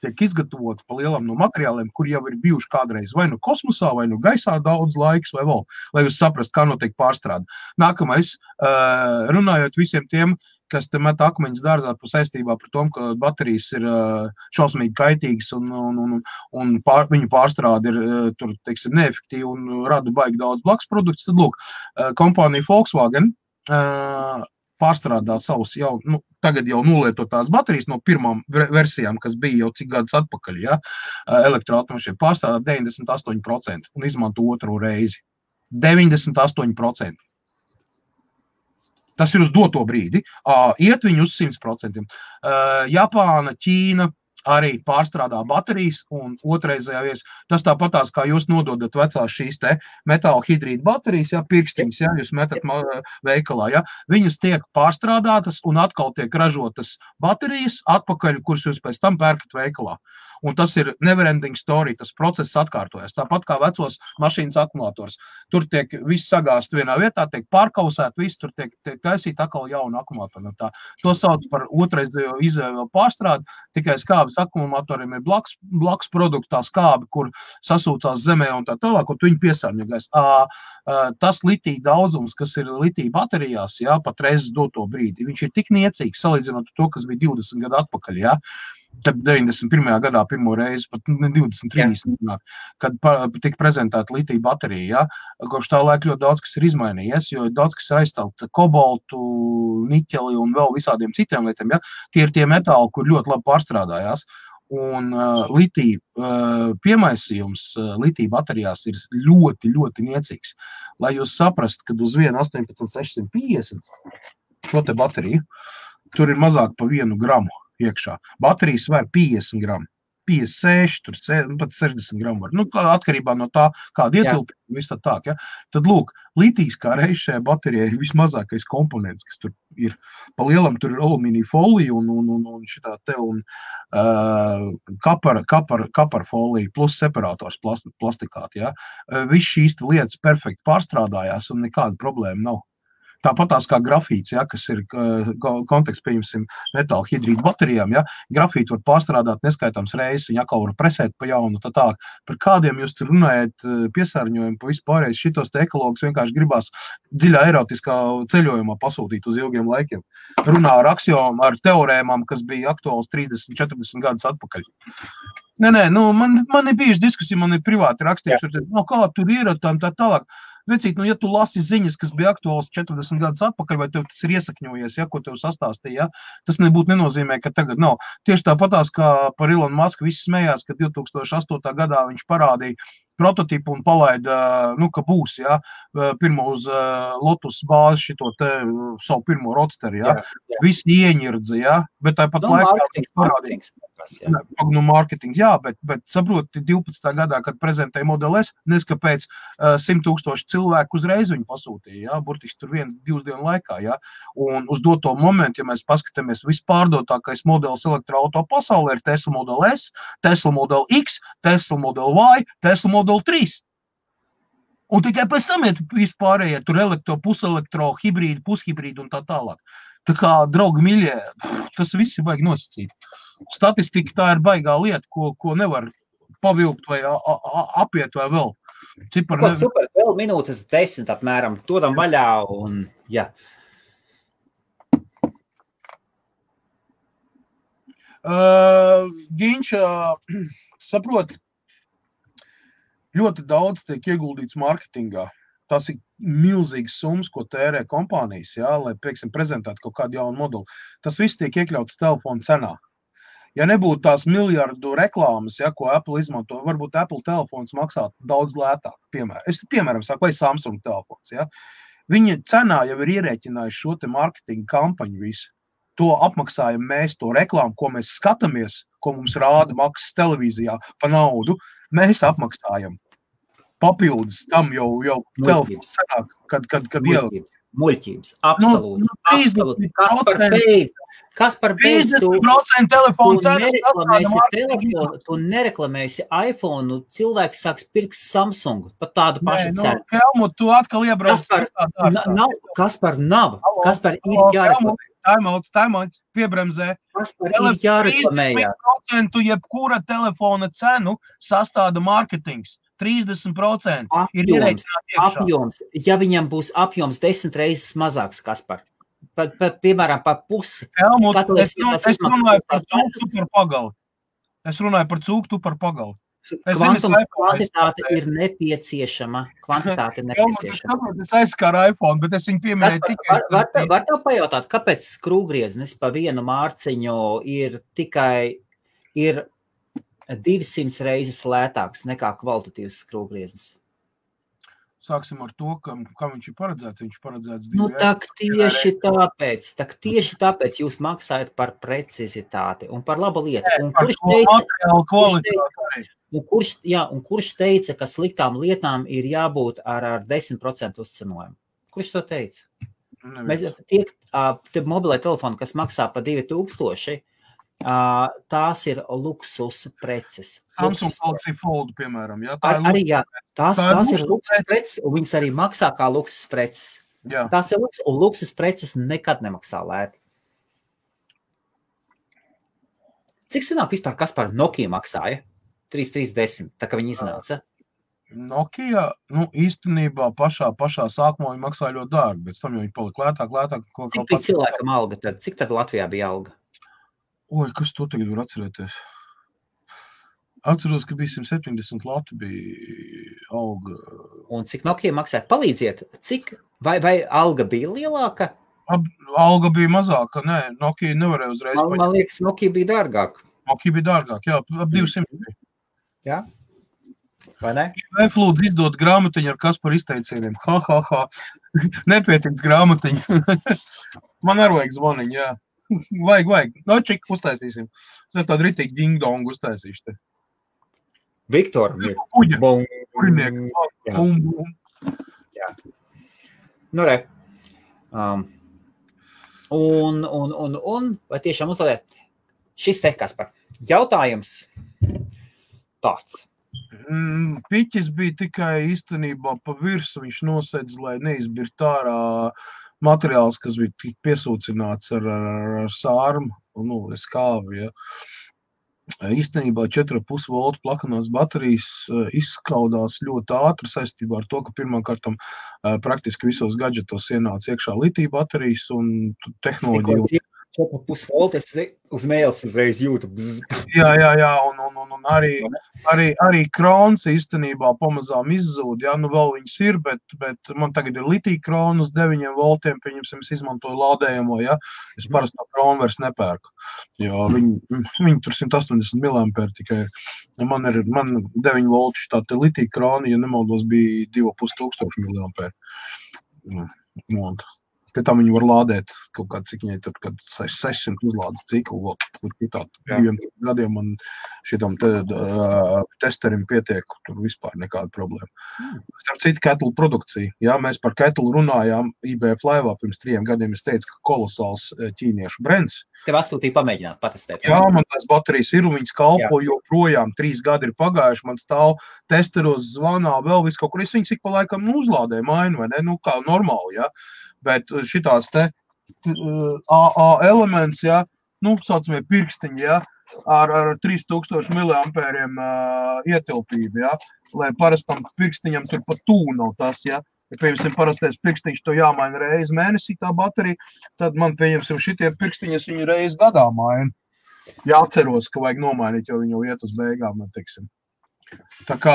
tiek izgatavoti pa lielam no materiāliem, kur jau ir bijuši kādreiz vai nu kosmosā, vai nu gaisā daudz laiks, vai vēl, lai jūs saprast, kā notiek pārstrāde. Nākamais, runājot visiem tiem, kas te met akmeņus dārzā par saistībā par tom, ka baterijas ir šausmīgi kaitīgas un viņu pārstrāde ir tur, teiksim, neefektīva un rada baigi daudz blakus produktus, tad lūk, kompānija Volkswagen pārstrādā savus jau, tagad jau nolietotās baterijas no pirmām versijām, kas bija jau cik gadus atpakaļ, ja, elektroautomašīna pārstrādā 98% un izmanto otro reizi. 98%. Tas ir uz doto brīdi. Iet viņu uz 100%. Japāna, Ķīna arī pārstrādā baterijas un otrreizējā vies. Tas tāpatās, kā jūs nododat vecās šīs te metāla hidrīta baterijas, ja, pirkstiņas, ja, jūs metat veikalā, ja. Viņas tiek pārstrādātas un atkal tiek ražotas baterijas atpakaļ, kuras jūs pēc tam pērkat veikalā. Un tas ir neverending story, tas process atkārtojas. Tāpat kā vecos mašīnas akumulators. Tur tiek viss sagāst vienā vietā, tiek pārkausēt, viss tur tiek taisīt atkal jaunu akumulatoru. To sauc par otraizējo izēju pārstrādi, tikai skābes akumulatoriem ir blakus produktā skābi, kur sasūcās zemē un tā tālāk, un viņi piesārņojas. Tas litija daudzums, kas ir litija baterijās, ja, patreiz doto brīdi, viņš ir tik niecīgs, salīdzinot to, kas bija 20 gadu atpakaļ, ja. Tad 91. gadā pirmo reizi, pat 20-30, kad tika prezentēta litija baterija, ja, kopš tā laika ļoti daudz, kas ir izmainījies, jo daudz, kas ir aizstāvts kobaltu, niķeli un vēl visādiem citiem lietiem, ja, tie ir tie metāli, kur ļoti labi pārstrādājās. Un litija piemaisījums litija baterijās ir ļoti, ļoti niecīgs. Lai jūs saprast, kad uz vienu 18650 šo te bateriju, tur ir mazāk pa 1 gramu iekšā. Baterijas var 50 gramu, 56, tur pat 60 gramu var. Nu, atkarībā no tā, kāda ietilpība, viss tā, ja. Tad, lūk, litijs kā reiz šajā baterijā ir vismazākais komponents, kas tur ir. Pa lielam tur ir alumīnija folija un šitā te un kapar folija plus separators plastikāti, ja. Viss šīs lietas perfekti pārstrādājās un nekāda problēma nav. Tāpatās kā grafīts, ja, kas ir konteksts, pieņemsim, metāla hidrīta baterijām, ja, grafītu var pārstrādāt neskaitāms reizes, viņa atkal var presēt pa jaunu, tā tā. Par kādiem jūs tur runājat piesārņojumu pa vispārējais šitos te ekologus vienkārši gribās dziļā erotiskā ceļojumā pasūtīt uz ilgiem laikiem. Runā ar aksiomām, ar teorēmām, kas bija aktuāls 30-40 gadus atpakaļ. Nē, man ir bijuši diskusija, man ir privāti rakstījuši, kā tur ir tā tālāk. Vecīt, ja tu lasi ziņas, kas bija aktuāls 40 gadus atpakaļ, vai tev tas ir iesakņojies, ja, ko tev sastāstīja, ja, tas nebūtu nenozīmē, ka tagad nav. Tieši tāpatās, kā par Elonu Musku visi smējās, ka 2008. gadā viņš parādīja prototipu un palaida, ka būs, ja, pirmo uz Lotus bāzi šito te savu pirmo roadsteri, ja. Visi ieņirdzi, ja, bet tāpat laikā viņš parādīja. No marketinga, jā, bet saproti, 12. gadā, kad prezentēja Model S, neskapēc 100,000 cilvēku uzreiz viņu pasūtīja, jā, burtiski tur 1-2 dienu laikā, jā, un uz doto momentu, ja mēs paskatāmies, vispārdotākais modelis elektroauto pasaulē ir Tesla Model S, Tesla Model X, Tesla Model Y, Tesla Model 3. Un tikai pēc tam ir vispārējie, tur puselektro, hibrīdi, pushibrīdi un tā tālāk. Tā kā, draugi miļie, tas viss ir baigi nosacīt. Statistika tā ir baigā lieta, ko nevar pavilkt vai apiet vai vēl. Super, vēl minūtes 10 apmēram, dodam vaļā un, jā. Ginč, saprot, ļoti daudz tiek ieguldīts marketingā. Tas ir milzīgs summas, ko tērē kompānijas, jā, lai, pieksim, prezentētu kaut kādu jaunu modeli. Tas viss tiek iekļauts telefona cenā. Ja nebūtu tās miljardu reklāmas, ja, ko Apple izmanto, varbūt Apple telefons maksātu daudz lētāk. Piemēram, saku, vai Samsung telefons. Ja. Viņa cenā jau ir ierēķinājuši šo te marketinga kampaņu visu. To apmaksājam mēs, to reklāmu, ko mēs skatāmies, ko mums rāda maksas televīzijā pa naudu, mēs apmaksājam. Papildus tam jau telefons sanāk, kad jau... Muļķības, absolūti. Absolūti. Kas par beidz? 50% telefonu tu nereklamēsi iPhone, cilvēks sāks pirkt Samsung, pat tādu pašu cenu. Helmut, tu atkal iebrauc. Kaspar nav. Kaspar ir jāreklamē. Taimauts, piebremzē. Kaspar ir jāreklamējās. 30% jebkura telefona cenu sastāda marketings. 30% ir ierēķināti iekšā. Apjoms. Ja viņam būs apjoms 10 reizes mazāks, Kaspar, piemēram, pa pusi. Helmut, es runāju par cūktu par pagali. Es runāju par cūktu par pagali. Kvantums kvantitāte ir nepieciešama. Es aizskāru iPhone, bet es viņu pieminēju tikai... Var tev pajautāt, kāpēc skrūvgrieznis pa vienu mārciņu ir 200 reizes lētāks nekā kvalitatīvs skrūvgrieznis? Sāksim ar to, kā viņš ir paredzēts. Viņš paredzēts 2 tieši tāpēc jūs maksājat par precizitāti un par labu lietu. Un kurš teica, ka sliktām lietām ir jābūt ar 10% uzcenojumu? Kurš to teica? Tie mobilē telefoni, kas maksā pa 2000, tās ir luksus preces. Samsung Galaxy Fold, piemēram. Jā, tās ir luksus preces, un viņas arī maksā kā luksus preces. Jā. Tās ir luksus, un luksus preces nekad nemaksā lēti. Cik senāk vispār Kaspar Nokia maksāja? 3310, tā kā viņi iznāca. Nokia, īstenībā pašā sākumā viņi maksāja ļoti dārgi, bet tam jau viņi palika lētāk. Cik bija cilvēkam alga tad? Cik tad Latvijā bija alga? Oi, kas to tagad var atcerēties? Atceros, ka bija 170 lati bija alga. Un cik Nokia maksāja? Palīdziet, vai alga bija lielāka? Alga bija mazāka, nē, Nokia nevarēja uzreiz paņemt. Man liekas, Nokia bija dārgāk. Nokia bija dārgāk, jā, ap 200 bija. Jā? Vai ne? Vai lūdzu izdot grāmatiņu ar Kaspar izteicieniem? Nepietiks grāmatiņu. Man arī vajag zvaniņu, jā. Vajag. Čik uztaisīsim. Es tādu ritīgi ding-dongu uztaisīšu te. Viktor. Kuģa. Kurinieku. Jā. Nu, re. Un vai tiešām uzlādē? Šis te, Kaspar. Jautājums tāds. Piķis bija tikai īstenībā pa virsu. Viņš nosedz, lai neizbirt ārā materiāls, kas bija tik piesūcināts ar sārmu, skāvi, ja. Īstenībā 4,5 voltu plakanās baterijas izskaudās ļoti ātri saistībā ar to, ka pirmkārtam praktiski visos gadžetos ienāca iekšā litija baterijas un tehnoloģija. 4,5 volti, es uz mēles uzreiz jūtu. Jā, un arī krons īstenībā pamazām izzūd, jā, vēl viņas ir, bet man tagad ir litija krona uz 9 voltiem, pieņemsim, es izmantoju lādējamo, jā, es parasti no krona vairs nepērku, jo viņi tur 180 mAh tikai ir, man 9 volti tā te litija krona, ja nemaldos, bija 2500 mAh. Pie tam viņi var lādēt kaut kā, cik viņai tur, kad 600 uzlādes ciklu, tā 2 gadiem man šitam testerim pietiek, tur vispār nekāda problēma. Starp citu, Kettle produkcija. Jā, mēs par Kettle runājām IBF laivā pirms 3 gadiem. Es teicu, ka kolosāls ķīniešu brands. Tev atsūtīja pamēģināt, patestēt. Jā, man tās baterijas ir, un viņas kalpo joprojām. 3 gadi ir pagājuši, man stāv testeros, zvanā, vēl viss kaut kur. Es viņas ik pa laikam uzlādēju mainu, vai ne? Nu, kā normāli, jā. Bet šitās te AA elements, jā, nu, saucamie pirkstiņi, jā, ar 3000 miliampēriem ietilpību, jā, lai parastam pirkstiņam tur pat tū nav tas, jā. Ja, pieņemsim, parastais pirkstiņš to jāmaina reizi mēnesī tā baterija, tad man, pieņemsim, šitie pirkstiņas viņu reizi gadā maina. Jāatceros, ka vajag nomainīt, jo viņi jau iet uz beigām, man teiksim. Tā kā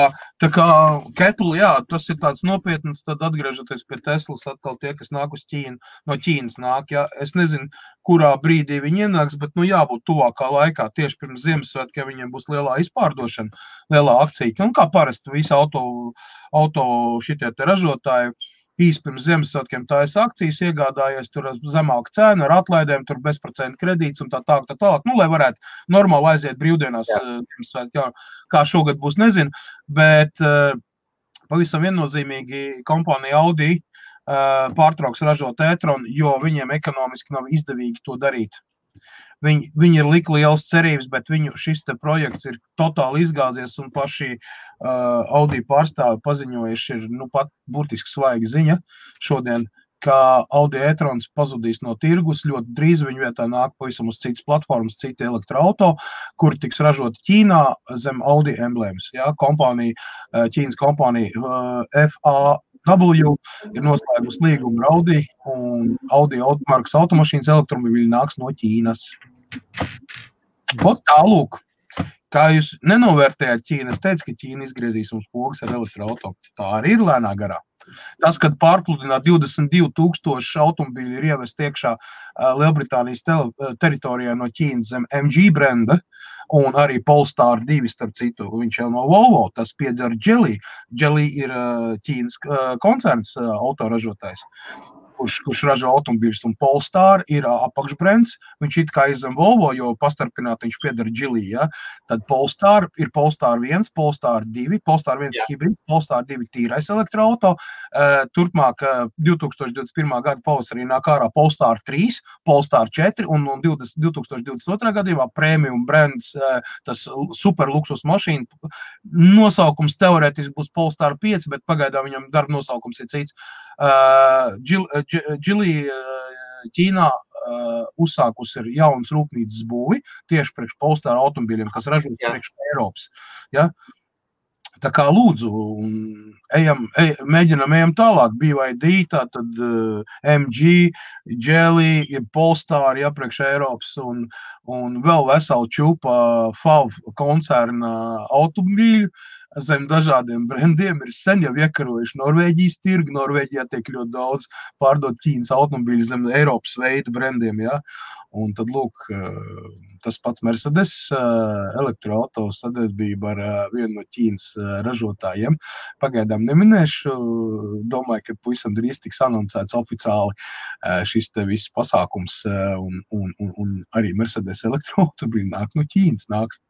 Kettle, jā, tas ir tāds nopietns, tad atgriežoties pie Teslas, atkal tie, kas nāk uz Ķīnu, no Ķīnas nāk, jā, es nezinu, kurā brīdī viņi ienāks, bet, nu, jābūt tuvākā laikā, tieši pirms Ziemassvētkiem viņiem būs lielā izpārdošana, lielā akcija, un kā parasti visi auto šitie te ražotāji, īsi pirms Ziemassvētkiem tājas akcijas iegādājies, tur zemāka cena ar atlaidēm, tur bezprocentu kredīts un tā, nu, lai varētu normāli aiziet brīvdienās, jā, kā šogad būs, nezinu, bet pavisam viennozīmīgi kompānija Audi pārtrauks ražot e-tronu, jo viņiem ekonomiski nav izdevīgi to darīt. Viņi ir lika lielas cerības, bet viņu šis te projekts ir totāli izgāzies un paši Audi pārstāvi paziņojuši ir, nu, pat burtiski svaiga ziņa šodien, ka Audi e-trons pazudīs no tirgus, ļoti drīz viņu vietā nāk pavisam uz citas platformas, citi elektroauto, kuri tiks ražoti Ķīnā zem Audi emblēmas. Ja? Ķīnas kompānija FAW ir noslēgusi līgumu ar Audi, un Audi markas automašīnas elektromobīļi nāks no Ķīnas. Tālūk, kā jūs nenovērtējāt Ķīnu, es teicu, ka Ķīna izgriezīs mums pogas ar elektroauto. Tā arī ir lēnā garā. Tas, kad pārpludināt 22,000 automobīļi ir ievest iekšā Lielbritānijas teritorijā no Ķīnas zem MG brenda, un arī Polestar 2, starp citu, viņš jau no Volvo, tas pieder Geely. Geely ir Ķīnas koncerns autoražotājs, kurš ražo automobīļus, un Polestar ir apakšbrends, viņš it kā izzem Volvo, jo pastarpināt viņš pieder Geely, ja? Tad Polestar ir Polestar 1, Polestar 2, Polestar 1 hibrid, Polestar 2 tīrais elektroauto, turpmāk 2021. Gada pavasarī nāk ārā Polestar 3, Polestar 4, un 2022. Gadījumā premium brands, tas super luksus mašīna, nosaukums teorētiski būs Polestar 5, bet pagaidā viņam darba nosaukums ir cits. Geely Ķīnā uzsākus ir jauns rūpnīcas būvi tieši priekš Polestar automobīļiem, kas ražo priekš Eiropas. Ja? Tā kā lūdzu, mēģinam tālāk, BYD, tātad MG, Geely, Polestar, ja, priekš Eiropas un vēl vesela čupa FAW koncerna automobīļu. Zem dažādiem brendiem ir sen jau iekarojuši Norvēģijas tirgu. Norvēģijā tiek ļoti daudz pārdot Ķīnas automobīļu zem Eiropas veidu brendiem, ja? Un tad, lūk, tas pats Mercedes elektroauto sadarbība ar vienu no Ķīnas ražotājiem. Pagaidām neminēšu, domāju, ka pavisam drīz tiks anoncēts oficiāli šis te viss pasākums un arī Mercedes elektroautomobīļi nāk no Ķīnas, nāks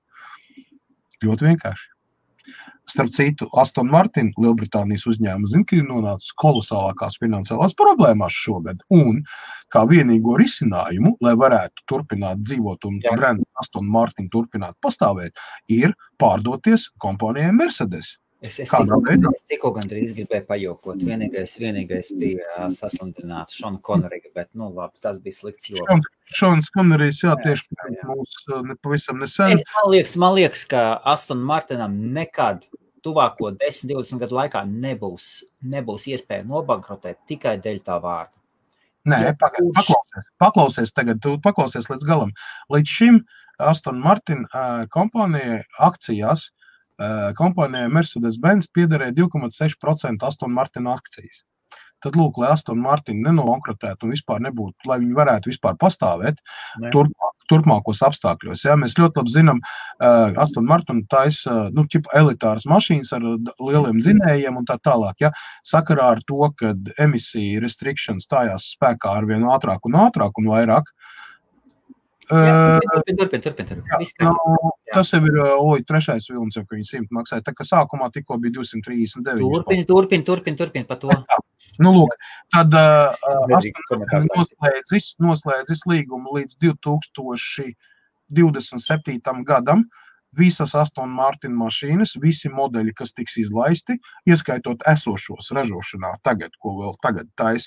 ļoti vienkārši. Starp citu, Aston Martin, Lielbritānijas uzņēmuma, zina, ka ir nonācis kolosālākās finansiālās problēmās šogad. Un kā vienīgo risinājumu, lai varētu turpināt dzīvot un brendu Aston Martin turpināt pastāvēt, ir pārdoties kompānijai Mercedes. Es tikko gandrīz gribēju pajokot. Vienīgais bija saslimtināt Šonu Konerigu, bet, nu, labi, tas bija slikts joks. Šons Konerijs, jā, tieši mūs pavisam nesen. Man liekas, ka Aston Martinam nekad tuvāko 10-20 gadu laikā nebūs iespēja nobankrotēt tikai dēļ tā vārda. Nē, paklausies tagad, tu paklausies līdz galam. Līdz šim Aston Martin kompānijai akcijās kompānijai Mercedes-Benz piederēja 2,6% Aston Martin akcijas. Tad, lūk, lai Aston Martin nenobankrotētu un vispār nebūtu, lai viņi varētu vispār pastāvēt, turpmākos apstākļos. Ja? Mēs ļoti labi zinām, Aston Martin taisa elitāras mašīnas ar lieliem dzinējiem un tā tālāk. Ja? Sakarā ar to, kad emisija restriction stājās spēkā ar vien ātrāk un vairāk. Turpin. Tas jau ir trešais vilnis, jau, ka viņi 100 maksāja. Tā kā sākumā tikko bija 239. Turpin par to. Nu, lūk, tad noslēdzis līgumu līdz 2027. gadam. Visas Aston Martin mašīnas, visi modeļi, kas tiks izlaisti, ieskaitot esošos ražošanā tagad, ko vēl tagad tais,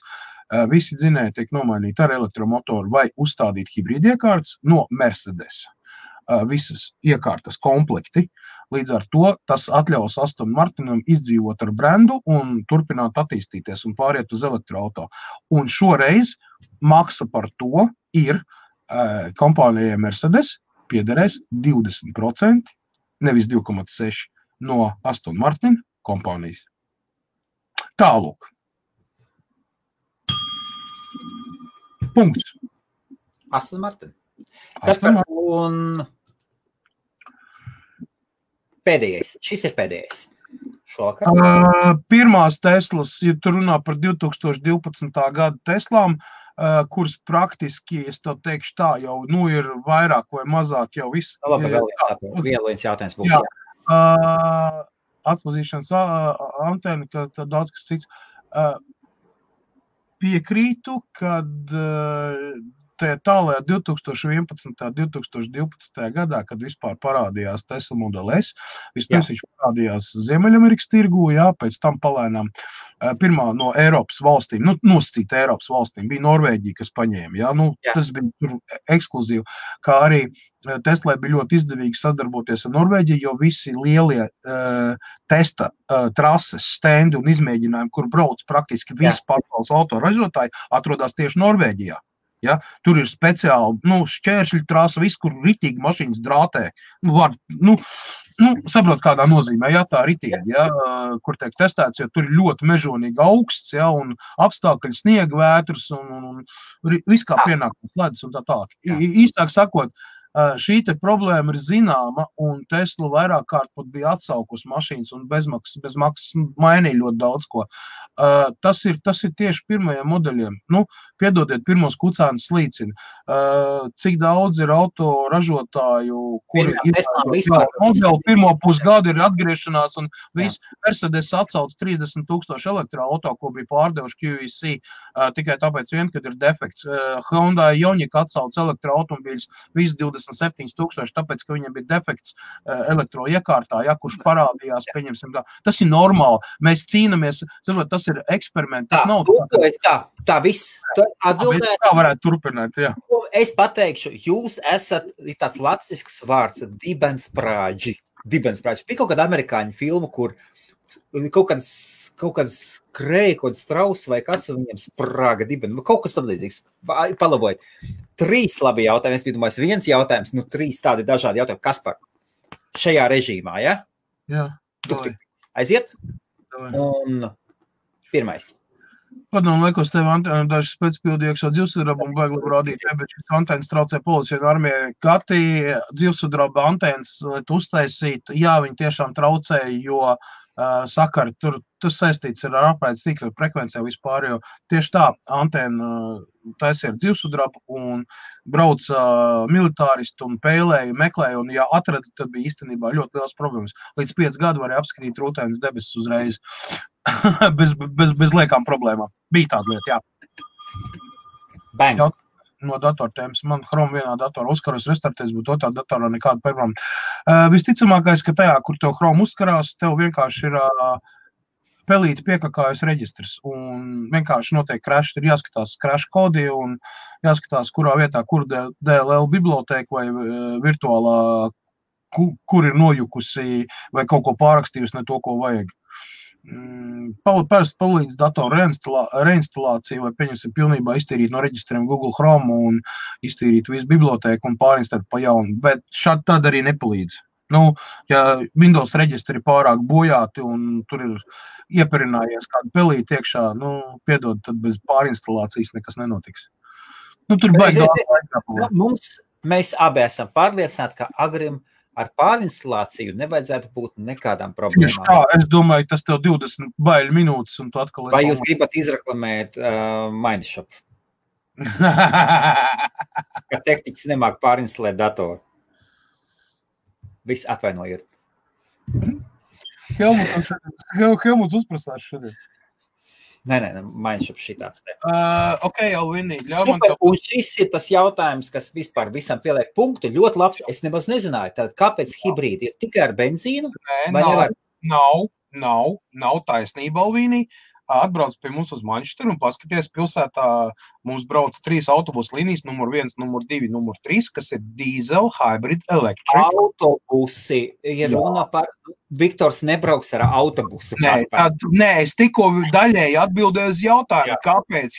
visi dzinēji tiek nomainīti ar elektromotoru vai uzstādīt hibrīdiekārtas no Mercedes. Visas iekārtas komplekti. Līdz ar to tas atļaus Aston Martinam izdzīvot ar brendu un turpināt attīstīties un pāriet uz elektroauto. Un šoreiz maksa par to ir kompānijai Mercedes piederēs 20%, nevis 2,6% no Aston Martin kompānijas. Tālūk. Punkts. Aston Martin. Kas par un pēdējais? Šis ir pēdējais. Šovakar. Pirmās Teslas, ja tu runā par 2012. gada Teslām, kuras praktiski, es to teikšu tā, jau ir vairāk vai mazāk jau viss. Labi, vēl viens jautājums būs. Atpazīšanas antena, ka daudz kas cits. Piekrītu, kad tālajā 2011. 2012. gadā, kad vispār parādījās Tesla Model S, vispirms viņš parādījās Ziemeļamerikas tirgū, pēc tam palēnām pirmā no Eiropas valstīm, nosacīta Eiropas valstīm, bija Norvēģija, kas paņēma, tas bija tur ekskluzīvi, kā arī Teslai bija ļoti izdevīgi sadarboties ar Norvēģiju, jo visi lielie testa trases, stendi un izmēģinājumi, kur brauc praktiski visi pasaules autoražotāji, atrodas tieši Norvēģijā. Ja? Tur ir speciāli šķēršļu trasa, viss, kur ritīgi mašīnas drātē. Saprot, kādā nozīmē, tā ritīgi, kur tiek testēts, jo tur ir ļoti mežonīgi augsts, un apstākļi sniega vētras un viss kā pienākums ledus un tā tālāk. Īstāk sakot, šī te problēma ir zināma, un Tesla vairāk kārt pat bija atsaukus mašīnas un bez maksas mainīja ļoti daudz ko. Tas ir tieši pirmajiem modeļiem. Piedodiet, pirmos kucēnas slīcina. Cik daudz ir auto ražotāju, kuri modeli pirmo pusgadu ir atgriešanās, un viss Mercedes atsauc 30,000 elektroauto, ko bija pārdevuši QEC, tikai tāpēc vien, kad ir defekts. Hyundai Ioniq atsauc elektroautomobīļus, viss 27,000, tāpēc, ka viņam bija defekts elektroiekārtā, kurš parādījās, pieņemsim tā. Tas ir normāli. Mēs cīnamies, tas ir eksperiments, tas nav tā viss. Tā varētu turpināt, Es pateikšu, jūs esat tāds latviešu vārds, dibensprāģi. Bija kaut kāda amerikāņu filma, kur kaut kāds skrēja, kaut kāds strauss vai kas, viņam sprāga dibeni. Kaut kas tam līdzīgs. Palabojiet. 3 labi jautājumi. Es biju domājis, 1 jautājums, 3 tādi dažādi jautājumi. Kas par šajā režīmā, ja? Jā. Aiziet? Un pirmais. Padomu laikos tev antēna dažas pēcpildi iekšā dzīvsudraba un baigi labi rādīt, bet šis antēnas traucē policija un armijai. Kati dzīvsudraba antēnas, lai tu uztaisītu, viņi tiešām traucēja, jo sakari, tas saistīts ar apraides tīkla frekvencijā vispār, jo tieši tā antēna taisīja ar dzīvsudrabu un brauca militāristi un pēlēja, meklēja, un ja atrada, tad bija īstenībā ļoti liels problēmas. Līdz 5 gadu varēja apskatīt rūtēnas debesis uzreiz. bez liekām problēmām. Bija tāda lieta, Bang. No datortēmas. Man Chrome vienā datorā uzkaros restartēs, bet otrā datorā nekāda problēma. Visticamākais, ka tajā, kur tev Chrome uzkarās, tev vienkārši ir pelīti piekakājas reģistrs un vienkārši notiek crash, ir jāskatās crash kodi un jāskatās, kurā vietā, kur DLL bibliotēka vai virtuālā, kur ir nojukusi vai kaut ko pārakstījusi, ne to, ko vajag. Parasti palīdz datoru reinstalāciju vai pieņemsim pilnībā iztīrīt no reģistriem Google Chrome un iztīrīt visu bibliotēku un pārinstalēt pa jaunu, bet šādi tad arī nepalīdz. Ja Windows reģistri pārāk bojāti un tur ir ieperinājies kādu pelīti iekšā, piedod, tad bez pārinstalācijas nekas nenotiks. Tur baigi daudz. Mēs abi esam pārliecināti, ka Agrim ar pārinstalāciju nevajadzētu būt nekādām problēmām. Tieši tā, es domāju, tas tev 20 baiļu minūtes, un tu atkal... Vai jūs gribat izreklamēt Mindshop? Ka tehniķis nemāk pārinstalēt datoru. Viss atvainojiet. Helmuts uzprasās šodien. Nē, Mindshop šitāds te. Ok, Alvini, ļauj man Super, un šis ir tas jautājums, kas vispār visam pieliek punktu. Ļoti labs, es nemaz nezināju. Tad kāpēc hibrīdi ir tikai ar benzīnu? Nav taisnība, Alvini. Atbrauc pie mums uz Manchesteru un paskaties, pilsētā mums brauc 3 autobusu līnijas, numur 1, numur 2, numur 3, kas ir diesel, hybrid, electric. Autobusi ir runa par... Viktors nebrauks ar autobusu. Nē, es tikko daļēji atbildēju uz jautājumu, kāpēc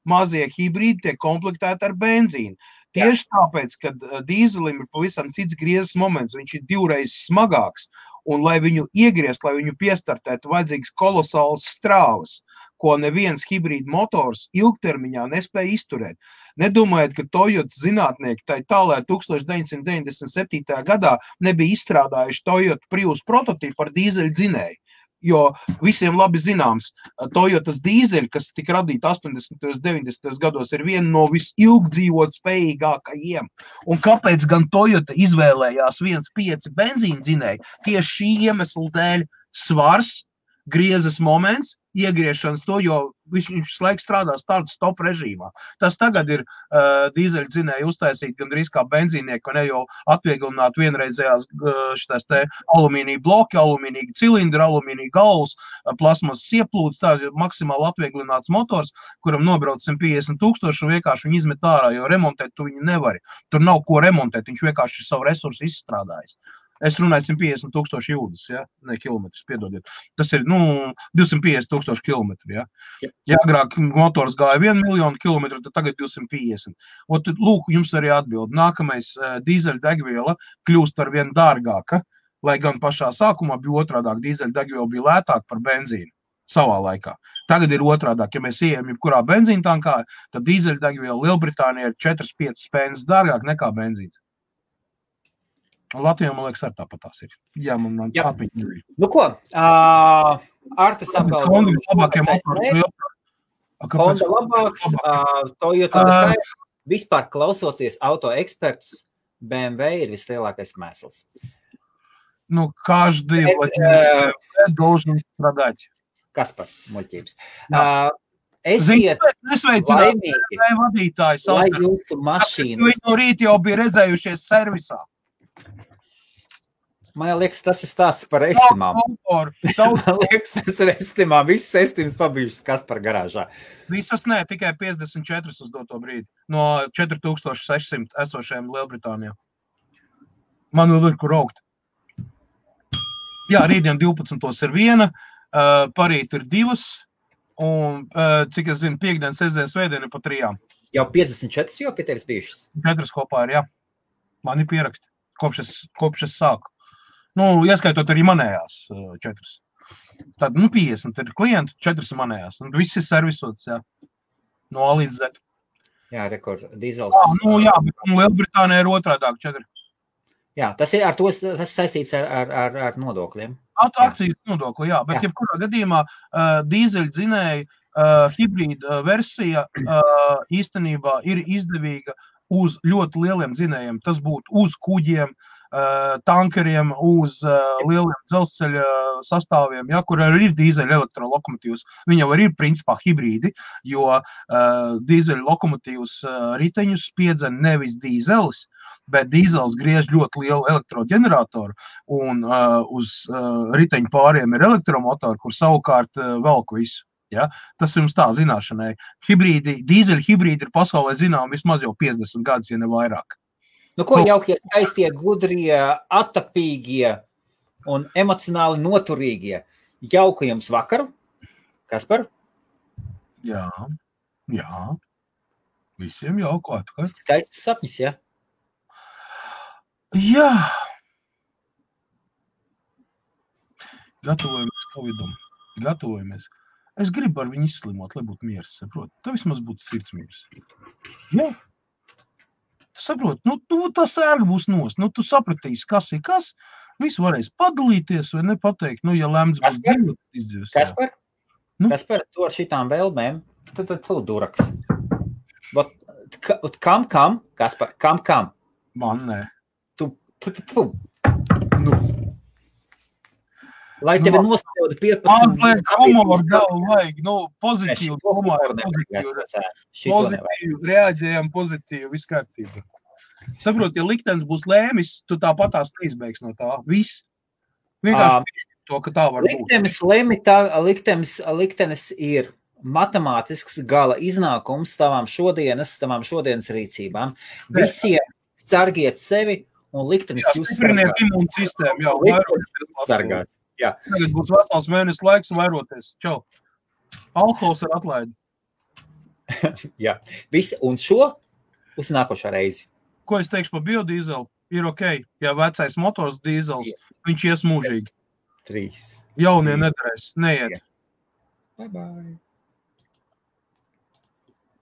mazie hibrīdi tiek komplektēti ar benzīnu. Tieši tāpēc, ka dīzelim ir pavisam cits griezes moments, viņš ir 2 reizes smagāks. Un, lai viņu iegriezt, lai viņu piestartētu, vajadzīgs kolosāls strāvas, ko neviens hibrīda motors ilgtermiņā nespēja izturēt. Nedomājiet, ka Toyota zinātnieki tālē 1997. gadā nebija izstrādājuši Toyota Prius prototipu ar dīzeļu dzinēju. Jo visiem labi zināms, Toyotas dīzeļi, kas tika radīti 80. un 90. gados, ir viena no visilgdzīvot spējīgākajiem. Un kāpēc gan Toyota izvēlējās 1.5 benzīna dzinēju? Tieši šī iemesla dēļ svars, griezes moments, iegriešanas to, jo viņš laiks strādās tādu stop režīmā. Tas tagad ir dīzeļu dzinēju uztaisīt gandrīz kā benzīnieki, un jau atvieglināt vienreizējās šitais te alumīnija bloki, alumīnija cilindri, alumīnija galvas, plasmas ieplūdes, tā ir maksimāli atvieglināts motors, kuram nobrauc 150 000 un vienkārši viņu izmet ārā, jo remontēt tu viņu nevari. Tur nav ko remontēt, viņš vienkārši savu resursu izstrādājis. Es runāju 150 000 jūdzes, ja? Ne kilometrus, piedodiet. Tas ir, 250 000 kilometru, ja? Ja agrāk motors gāja 1 miljonu kilometru, tad tagad 250. Un tad, lūk, jums arī atbild. Nākamais dīzeļu degviela kļūst ar vien dārgāka, lai gan pašā sākumā bija otrādāk. Dīzeļu degviela bija lētāk par benzīnu savā laikā. Tagad ir otrādāk. Ja mēs ejam jebkurā benzīna tankā, tad dīzeļu degviela Lielbritānijā ir 4-5 spēnes dārgāk nekā benzīns. Latvijā, man liekas, ar tāpatās ir. Jā, man tāpiņi ir. Nu ko, Artis apgalvo. Honda labāks, Toyota vispār klausoties auto ekspertus, BMW ir vislielākais mēsls. Каждый должен страдать. Kaspar, muļķības. Esiet laimīgi, lai jūsu mašīnas. Viņi no rīt jau bija redzējušies servisā. Man liekas, tas ir stāsts par estimām. Man liekas, tas ir estimām. Visas estimas pabijušas Kaspar garāžā. Visas nē, tikai 54 uz doto brīdi. No 4600 esošajiem Lielbritānijā. Man vēl ir kur augt. Jā, rītdien 12. ir viena, parīt ir 2, un, cik es zinu, piekdien, sestdien, svētdien ir pa 3. Jau 54 jau pie tevis bijušas? 4 kopā ir, jā. Man ir pieraksti, kopš es sāku. Ieskaitot arī manējās 4. Tad, 50 ir klienti, 4 ir manējās. Un viss ir servisots, jā. No A līdz Z. Jā, rekord, dīzels. Jā, bet Lielbritānijā ir otrādāk 4. Jā, tas ir ar to, tas saistīts ar nodokļiem. Akcijas nodokli, jā, bet jebkurā gadījumā dīzeļu dzinēju hibrīda versija īstenībā ir izdevīga uz ļoti lieliem dzinējiem. Tas būtu uz kuģiem, tankeriem, uz lieliem dzelzceļa sastāviem, ja, kur arī ir dīzeļa elektrolokomotīvs. Viņi jau arī ir principā hibrīdi, jo dīzeļa lokomotīvs riteņus spiedzen nevis dīzelis, bet dīzels griež ļoti lielu elektroģeneratoru, un uz riteņu pāriem ir elektromotori, kur savukārt velk visu. Ja? Tas jums tā zināšanai. Dīzeļa hibrīdi ir pasaulē zinām vismaz jau 50 gadus, ja ne vairāk. Ko jaukie, skaistie, gudrie, attapīgie un emocionāli noturīgie. Jauku jums vakaru. Kaspar? Jā. Visiem jauku atkal. Skaists sapnis, ja? Jā. Gatavojamies Covidam. Gatavojamies. Es gribu ar viņu izslimot, lai būtu miers, saprot. Tā vismaz būtu sirdsmiers. Jā. Tu saproti, tā sērga būs nost. Tu sapratīsi, kas ir kas. Visu varēs padalīties vai nepateikt. Ja lemts būs dzīvot, izdzīvos. Kaspar, tu ar šitām vēlmēm, tad tu duraks. Kam? Kaspar, kam? Man nē. Lai tevi nospļauda 15 humoru galvu vajag, pozitīvu humoru, pozitīvu, reaģējam pozitīvu, viss kārtībā. Saprot, ja liktenis būs lēmis, tu tāpatās neizbeigs no tā. Viss. Vienkārši to, ka tā var būt. Liktenis ir matemātisks gala iznākums tavām šodienas rīcībām. Visiem sargiet sevi un liktenis jūs sargās. Imūnu sistēmu, jau sargās. Jā. Tagad būs vesels mēnesis laiks vairoties. Čau. Alkohols ir atlaidi. Jā. Visi, un šo uz nākošā reizi. Ko es teikšu par biodīzelu? Ir ok. Ja vecais motors dīzels, viņš ies mūžīgi. 3. Jaunie nedarēs. Neiet. Bye bye.